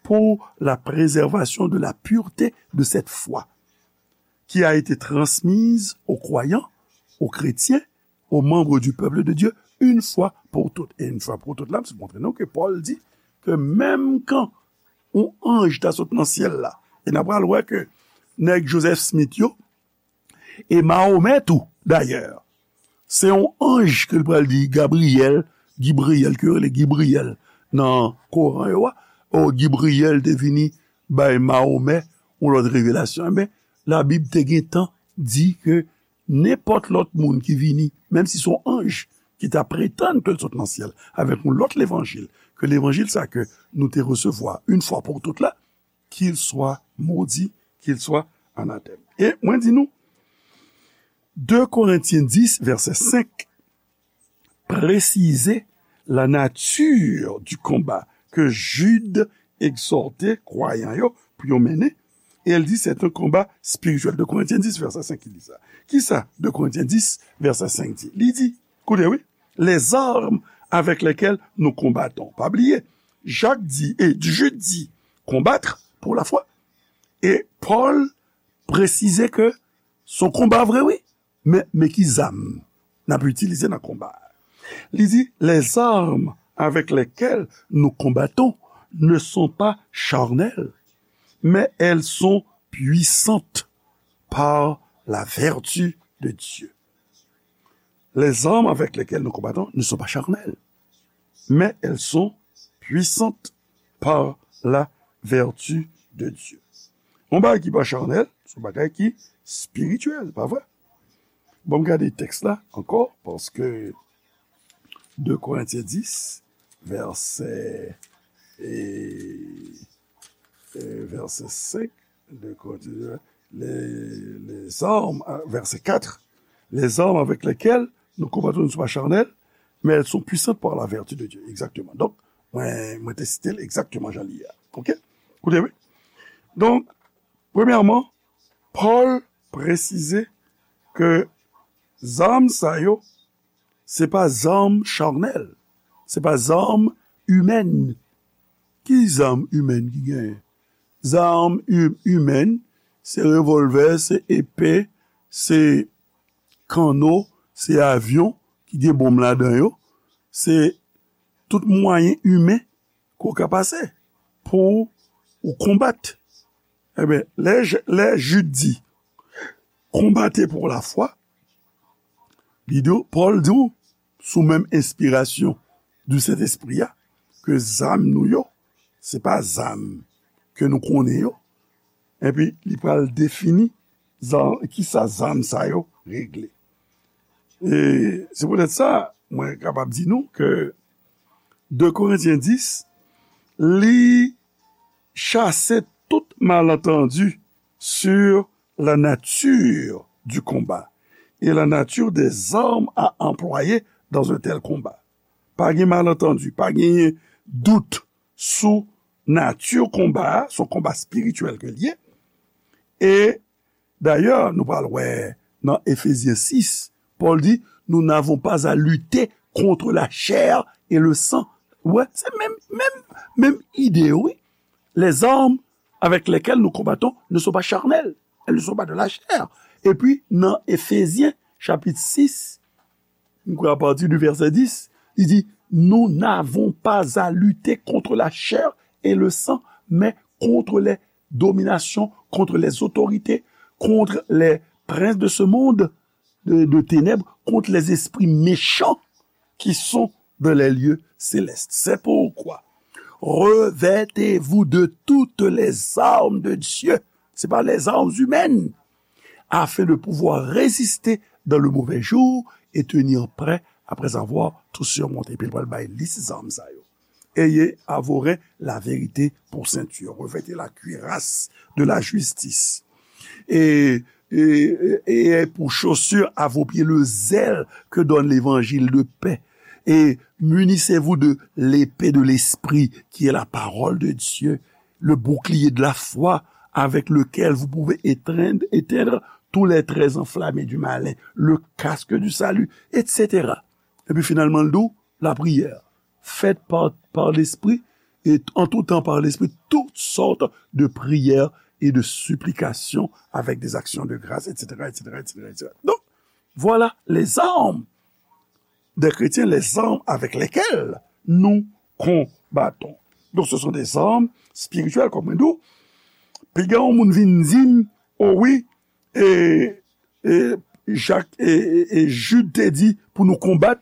pour la préservation de la pureté de cette foi qui a été transmise aux croyants, aux chrétiens, aux membres du peuple de Dieu, une fois pour toutes. E yon fwa pou tout la, se montre nou ke Pòl di ke menm kan yon anj ta sot nan syèl la, e n a pral wè ke nèg Joseph Smith yo, e Mahomè tou, dayè, se yon anj ke l pral di Gabriyèl, Gibriyèl, ke yo rele Gibriyèl nan Koran yo a, o Gibriyèl te vini bay Mahomè yon lòt revelasyon. Enben, Labib te gentan di ke nenpòt lòt moun ki vini, menm si se yon anj ki ta pretann ke l sot nan syèl avèk yon lòt levanjil ke levanjil sa ke nou te resevwa yon fwa pou tout la, qu'il soit maudit, qu'il soit anathème. E mwen di nou, de Korentyen dis, vèsè senk, presize la nature du combat ke Jude egzòte kwayan yo pou yo mennen, e l di c'est un combat spirituel. De Korentyen dis, vèsè senk, ki di sa. Kisa de Korentyen dis, vèsè senk di? Li di, koute wi, les armes avec lesquelles nous combattons. Pa bliye, Jak di, e Jude di, combattre pour la foi. E Pòl presize ke se yon konba vre, wi. Men, men ki zam n ap itilize nan konba a? Li di, les armes avec lesquelles nous combattons ne sont pas charnelles, mais elles sont puissantes par la vertu de Dieu. Les armes avec lesquelles nous combattons ne sont pas charnelles, mais elles sont puissantes par la vertu de Dieu. Yon bagay ki pa chanèl, se yon bagay ki espirityèl, pa vre? Bon, m gade tèks la ankò, paske de Korentyen dis, vèsè, e, e, vèsè senk, de Korentyen, les, les armes, vèsè kat, les armes avec lesquelles nous combattons ne sont pas charnelles, mais elles sont puissantes par la vertu de Dieu. Egzakteman. Donk, mwen, mwen te site l egzakteman jan li ye a. Oke? Koute, wi. Donk, premyèman, Pòl presize ke zam sa yo, se pa zam chanèl, se pa zam imèn. Ki zam imèn ki genyen? Zam i-, imèn, se revòlvè, se epe, se kanno, se avyon ki gen bonm ladan yo, se tout mwayen imen ke w ka pase pou ou konbat. Enben, lè, lè Jid di, combattez pour la foi, li di w, Pòl di w, sou menm enspirasyon di Sentespri a, ke zam nou yo, se pa zam ke nou konnen yo. Epi, li pral defini zam, kisa zam sa yo regle. E se poutèt sa, mwen kapab di nou ke de Korentyen dis, li chase tout malantandi sur la nature du combat et la nature des armes à employer dans un tel combat. Pa gen malantandi, pa genyen dout sou nati konba a, se yon konba espirityèl ke l ye. E dayè, nou pral wè nan Efezyen sis, Pòl di, nous n'avons pas à lutter contre la chair et le sang. Wè, se menm, menm, menm ide, wi. Les armes avec lesquelles nous combattons ne sont pas charnelles. Elles ne sont pas de la chair. Epi, nan Efezyen, chapit sis, m kwè apati di vèsè dis, li di, nous n'avons pas à lutter contre la chair et le sang, mais contre les dominations, contre les autorités, contre les princes de ce monde de, de ténèbres, contre les esprits méchants qui sont dans les lieux célestes. C'est pourquoi revêtez-vous de toutes les armes de Dieu. C'est pas les armes humaines, afin de pouvoir résister dans le mauvais jour et tenir prêt après avoir tout surmonté. Epi l pral bay lis zam sa yo. Ayez à vos reins la vérité pour ceinture. Revêtez la cuirasse de la justice. Et, et, et pour chaussure à vos pieds le zèle que donne l'évangile de paix. Et munissez-vous de l'épée de l'esprit, qui est la parole de Dieu, le bouclier de la foi, avec lequel vous pouvez étreindre, éteindre tous les traits enflammés du malin, le casque du salut, et cetera. Epi finalman, l di w, la prière, faites par, par l'esprit, et en tout temps par l'esprit, toutes sortes de prières et de supplications avec des actions de grâce, et cetera, et cetera, et cetera, et cetera. Donc, voilà les armes des chrétiens, les armes avec lesquelles nous combattons. Donc, ce sont des armes spirituelles, comme on dit. Piga yon moun vin di m, oh oui, et, et Jacques et, et, et Jude te di pou nou konbat,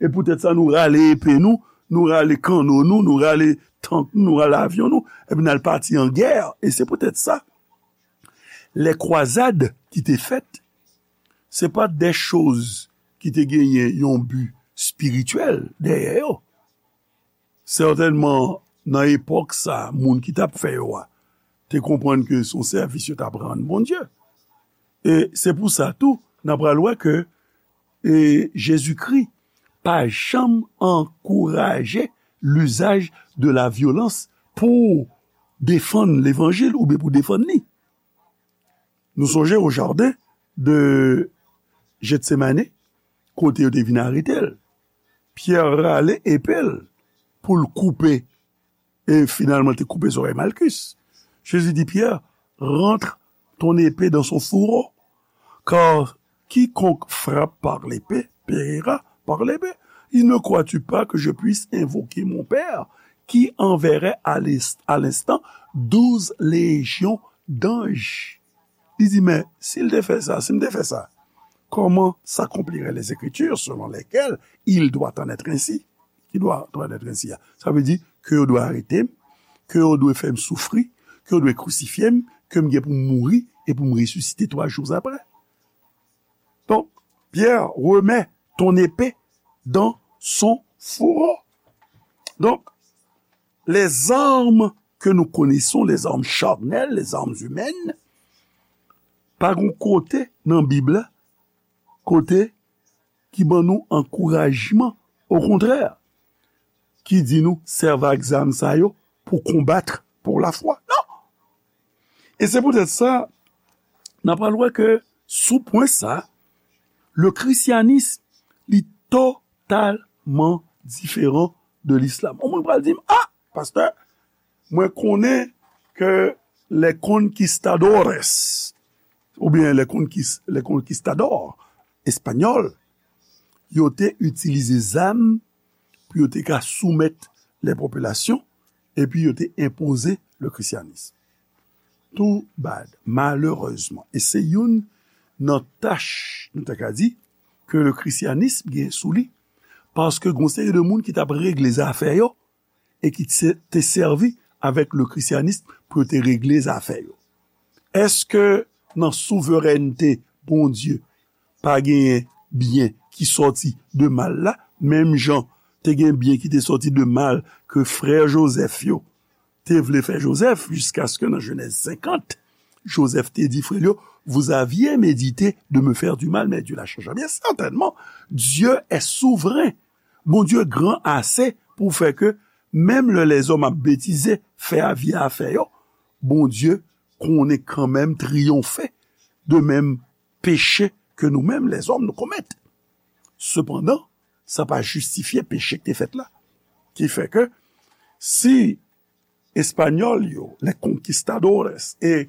e poutèt sa nou rale epe nou, nou rale kanno nou, nou rale tank nou, nou rale avyon nou, epi n al pati an gè. E se poutèt sa, lè kwazad ki te fèt, se pa de choz ki te genyen yon bi espirityèl dèyè yo. Sètènman, nan epòk sa, moun ki t ap fè yo a te konprann ke se yon sèvis yo t ap rann Bondye. E se pou sa tou, n ap pral wè ke e Jezikri pa janm ankouraje lizaj de la vyolans pou defann levanjil oubyen pou defann li. Nou sonje o jaden de Jetsemane, kote yo te vin arete l. Pyè rale epe l pou l koupe, e finalman, te koupe zòrèy Malkis. Jezi di Pyè, rentre ton épée dans son fourreau, car quiconque frappe par l'épée périra par l'épée. Et ne crois-tu pas que je puisse invoquer mon Père, qui enverrait à l'ins-, à l'instant douze légions d'anges? Li di, men si l te fè sa, si m te fè sa, comment s'accompliraient les Écritures selon lesquelles il doit en être ainsi? Ki dwa, dwa nèt ensi a. Sa vle di ke yo dwe arete m, ke yo dwe fè m soufri, ke yo dwe krisifye m, ke m gen pou m mouri e pou m resisite twa jou apre. Donk, Pierre, remets ton épée dans son fourreau. Donk, les armes que nous connaissons, les armes charnelles, les armes humaines, pa gon kote nan Bib la, kote ki ban nou ankourajman, okontrè, ki di nou sèvi ak zam sa yo pou konbat pou lafwa. Non! E se poutèt sa, n ap pral wè ke sou pwen sa, le christianisme, li totalman diferan de l'islam. Yon moun pral di m, ah, pastè, mwen konnen ke les conquistadores, oubyen les conquis-, les conquistadors espanyòl, yo te itilize zam pou yo te ka soumèt les populations, epi yo te enpoze le christianisme. Too bad, malerezman. E se youn nan tach, nou ta ka di, ke le christianisme gen sou li. Paske gon seri de moun ki t ap regle zafè yo, e ki te, te sèvi avèk le christianisme pou yo te regle zafè yo? Èske nan souverènte Bondye pa genyen byen ki sòti de mal la? Menm jan te gen byen ki te sòti de mal ke frè Jozèf yo te vle fè Jozèf, jiskaske nan Jenèz senkant, Jozèf te di frè l yo, vous aviez médité de me faire du mal, mais Dieu l'a changé en bien. Certainement, Dieu est souverain. Bondye gran ase pou fè ke menm lè lèzòm ap betize, fè avye afè yo, Bondye konnen kanmenm triyonfe de menm peche ke nou menm lèzòm nou komèt. Sepandan, sa pa jistifye peche ki te fèt la. Ki fè ke si Espanyòl yo, les conquistadores, e,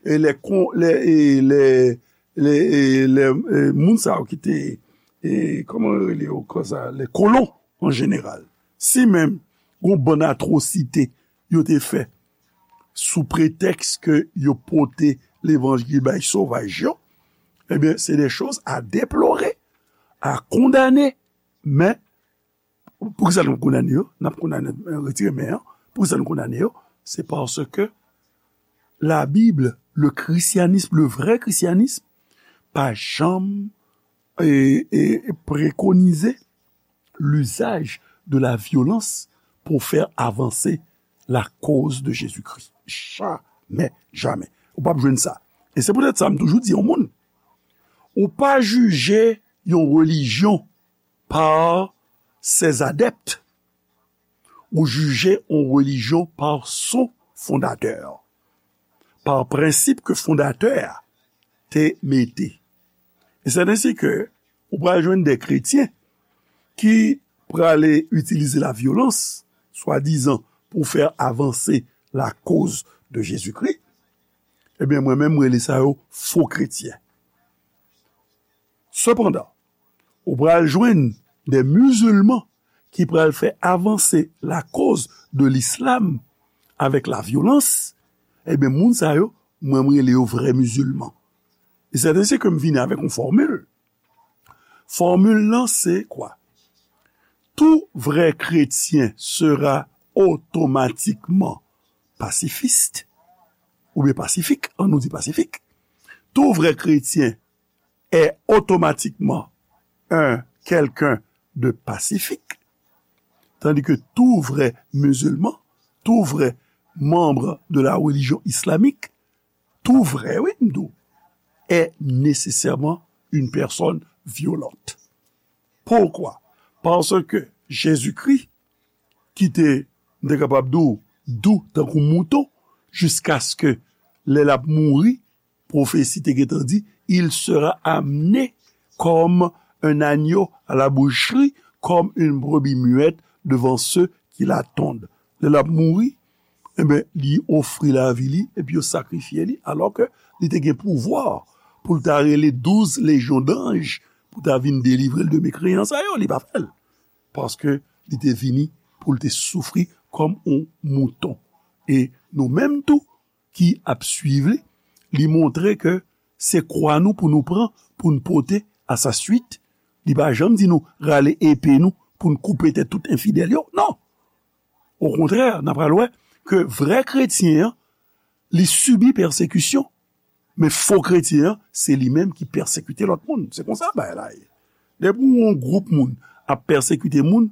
e les con-, les, e les, les, e les, e moun sa yo ki te, e, kòman yo rele yo konsa, les colons en général. Si menm gon bann atwosite yo te fè sou pretèks ke yo pote levanjil bay sovaj yo, ebyen, c'est des choses à déplorer, à condamner, men Poukisa nou kondane yo? N ap kondane, retire men an. Poukisa nou kondane yo? Se paske la Bible, le christianisme, le vrai christianisme, pa janm e, e, préconisé l'usage de la violence pour faire avancer la cause de Jésus-Christ. Jamè, jamè. Ou p ap jwenn sa. E se poutèt sa m toujou di yon moun, ou pa jije yon relijyon par ses adeptes, ou jije yon relijyon par son fondatè, par prensip ke fondatè a te mete. E se ensi ke ou pral jwenn de kretyen ki prale itilize la vyolans, swadizan pou fè avanse la koz de Jezikri, ebyen, mwen menm, mwen rele sa yo fo kretyen. Sepandan, ou pral jwenn de mizilman ki pral fè avanse la koz de lislam avèk la vyolans, ebyen, moun sa yo, mwen, mwen rele yo vrè mizilman. E se ensi ke m vini avèk yon fòmil. Fòmil lan se kwa? Tout vrai chrétien sera automatiquement pacifiste, oubyen pasifik, an nou di pasifik. Tout vrai chrétien est automatiquement un quelqu'un de pacifique, tandis que tout vrai musulman, tout vrai membre de la religion islamique, tout vrai, wi, m di w, est nécessairement une personne violente. Pourquoi? Parce que Jésus-Christ, ki te, m te kapab di w, dou tankou mouton, jiskaske lè l ap mouri, pwofesi te gentan di, il sera amené comme un agneau à la boucherie, comme une brebis muette devant ceux qui l'attendent. Lè l ap mouri, enben, li ofri lavi li, epi yo sakrifye li, alò ke li te gen pouvwa pou l ta rele douz lejyon danj pou ta vin delivre l de mekreyan sa yo, li pa fè l. Paske li te vini pou l te soufri kòm yon mouton. E nou menm tou ki ap swiv li, li montre ke se kwa nou pou nou pran, pou n pote à sa suite. Li pa janm di nou rale epe nou pou n koupe tèt tout enfidèl yo. Non! Okontrè, n a pral wè ke vrè kretyen an, li sibi pèsekisyon. Men fo kretyen an, se li menm ki pèsekite lòt moun. Se konsa bagay la ye. Depi yon gwoup moun ap pèsekite moun,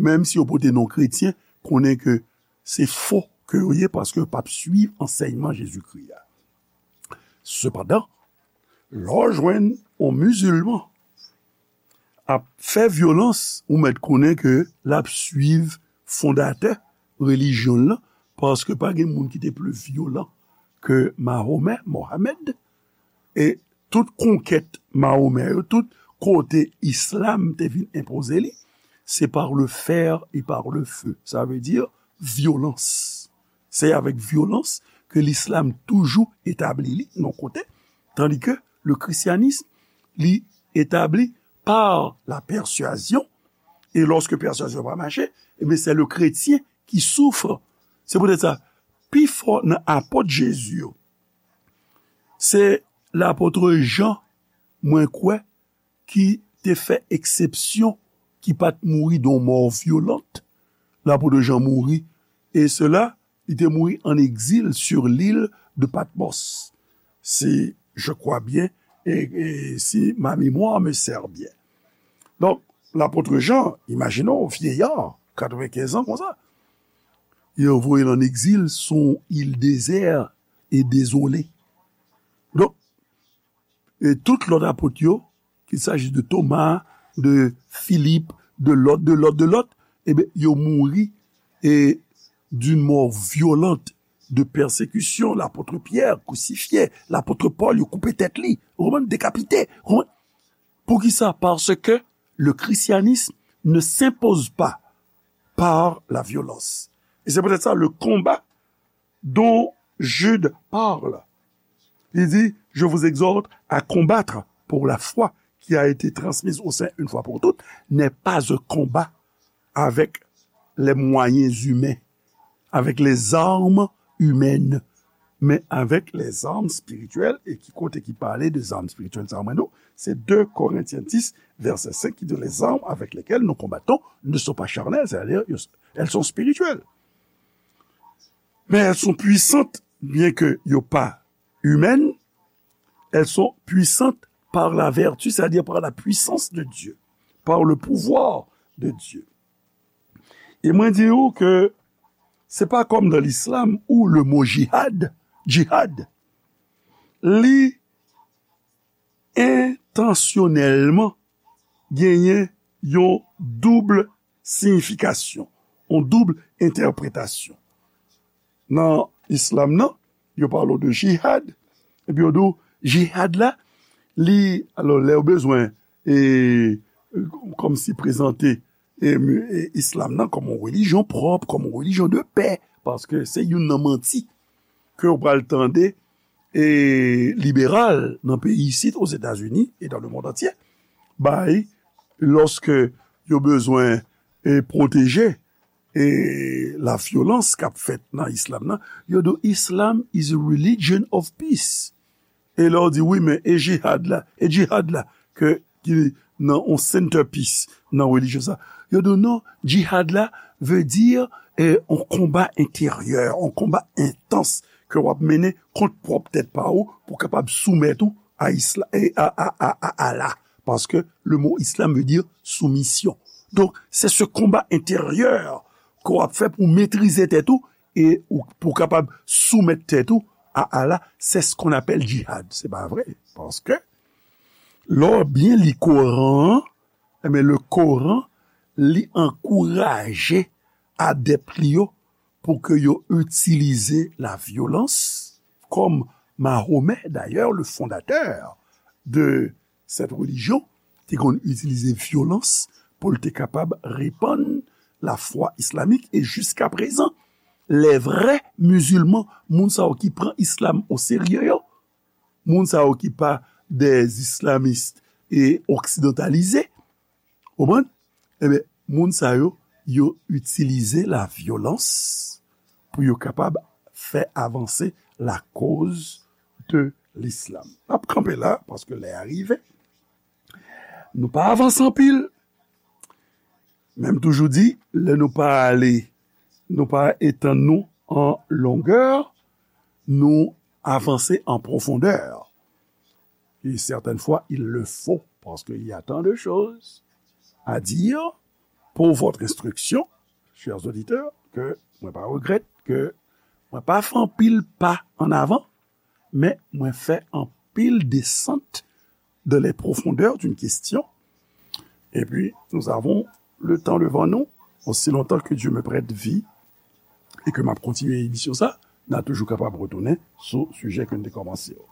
menm si yo pote non kretyen, konnen ke se fo ke yo ye paske yo p ap swiv ansèyman Jezikri a. Sepandan, lè w jwenn yon mizilman ap fè vyolans, ou mèt konnen ke l ap swiv fondatè relijyon l lan, paske pa gen moun ki te pli vyolan ke Mahomè, Mohamed, e tout konkèt Mahomè yo, tout kote islam te vin enpoze li, se par le fer et par le feu. Sa vle di vyolans. Se avèk vyolans ke lislam toujou etabli li nan kote, tandi ke le christianisme, li etabli par la persuasion, e lòske pèswazyon pa mache, ebyen, se le kretyen ki soufre. Se poutèt sa, pifò nan apot Jezi yo, se lapot Jan, mwen kwè, ki te fè eksepsyon, ki pa t mouri de yon mò vyolant. Lapot Jan mouri, e sela, li te mouri an egzil sur l'île de Patmos. Si je crois bien, e, e si ma mémoire me sert bien. Donk, lapot Jan, imajine w, vyeya, katrevenkenz an konsa, yo voye l an egzil sou yon il dezè e dezole. Donk, e tout lòt apot yo, qu'il s'agisse de Thomas, de Philippe, de lòt, de lòt, de lòt, ebyen, yo mouri e d'une mort violente de persécution, lapot Pyè krisifye, lapot Pòl, yo koupe tèt li, ou konprann, dekapite, ou konprann? Poukisa? Parce que le christianisme ne s'impose pas par la violence. Et c'est peut-être ça le combat dont Jude parle. Il dit, je vous exhorte à combattre pour la foi qui a été transmise aux saints une fois pour toutes, n'est pas un combat avec les moyens humains, avec les armes humaines. men avèk lèzam espirityèl, e ki kote ki pale de zam espirityèl sa mwen nou, se de Korentyen dis, vèsè senk, ki di, les armes avec lesquelles nous combattons ne sont pas charnelles, c'est-à-dire, elles sont spirituelles. Mais elles sont puissantes, bien que yo pa humaines, elles sont puissantes par la vertu, c'est-à-dire par la puissance de Dieu, par le pouvoir de Dieu. E mwen di ou ke se pa kòm nan lislam ou le mo jihad, jihad, li entansyonèlman genyen yon doub siyifikasyon, yon doub entèpretasyon. Nan islam nan, yo pale w de jihad, epi yo di w, jihad la, li, alò, lè yo bezwen, e, kòmsi prezante, e, e, islam nan kòm yon relijyon pwòp, kòm yon relijyon de pè, paske se youn nan manti ke w pral tande, e, liberal nan peyi isit, Ozetazini e dans le monde entier, bay, lòske yo bezwen, e, pwoteje, e, lavyolans k ap fèt nan islam nan, yo di, "Islam is a religion of peace." E lè w di, "Wi, men e jihad la, e jihad la, ke, ki nan yon centerpiece nan relijyon sa?" Yo di, "Non, jihad la vle di, e, yon konba enteryè, yon konba entans ke w ap mennen kont pwòp tèt pa ou pou w kapab soumèt ou a isla-, e, a, a, a, a Allah." Paske le mo islam veut dire soumission. Donk, se se konba enteryè ke w ap fè pou w metrize tèt ou e ou, pou w kapab soumèt tèt ou a Allah, c'est ce qu'on appelle jihad. Se pa vre. Paske, lè w byen li Koran an, enben, le Koran, li ankouraje adèp li yo pou ke yo itilize lavyolans, kòm Mahomè, d'ailleurs, le fondateur de cette religion, te konn itilize vyolans pou l te kapab repann lafwa islamik, e jiska prezan, les vrais musulmans, moun sa yo ki pran islam o serye yo, moun sa yo ki pa des islamistes e occidentalisés, ou konprann? Ebyen, moun sa yo, yo itilize lavyolans pou yo kapab fè avanse la cause de l'islam. N ap kanpe la, paske lè a rive. Nou pa avanse anpil. Men m toujou di, lè nou pa ale, nou pa etann nou an longè, nou avanse an pwofondè. Et certaines fois, il le faut, parce qu'il y a tant de choses à dire pour votre instruction, chers auditeurs, que mwen pa regrèt ke mwen pa fè anpil pa an avan, men mwen fè anpil desant dans les profondeurs d'une question. Et puis, nous avons le temps devant nous, aussi longtemps que Dieu me prête vie, e ke m ap kontinye emisyon sa, n a toujou kapab retounen sou sijè ke n te kòmanse yo.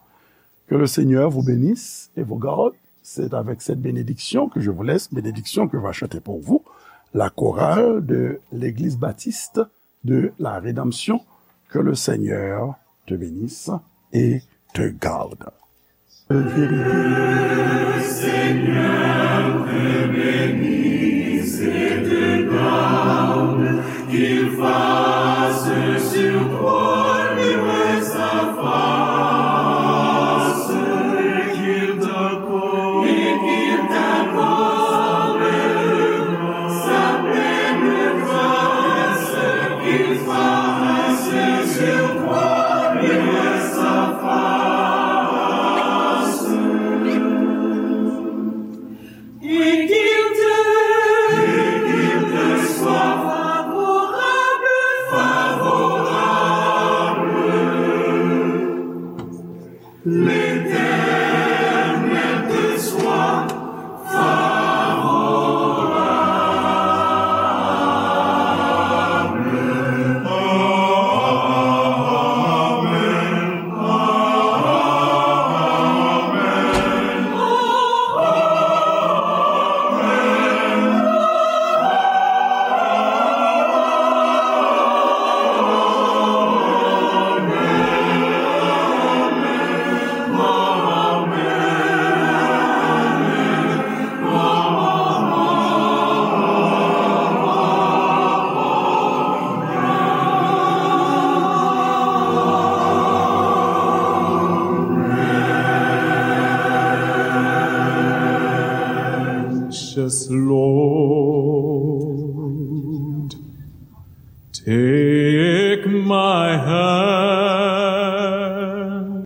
Que le Seigneur vous bénisse et vous garde. C'est avec cette bénédiction que je vous laisse, bénédiction que va chanter pour vous la chorale de l'Église baptiste de la Rédemption. Que le Seigneur te bénisse et te garde. Lord, take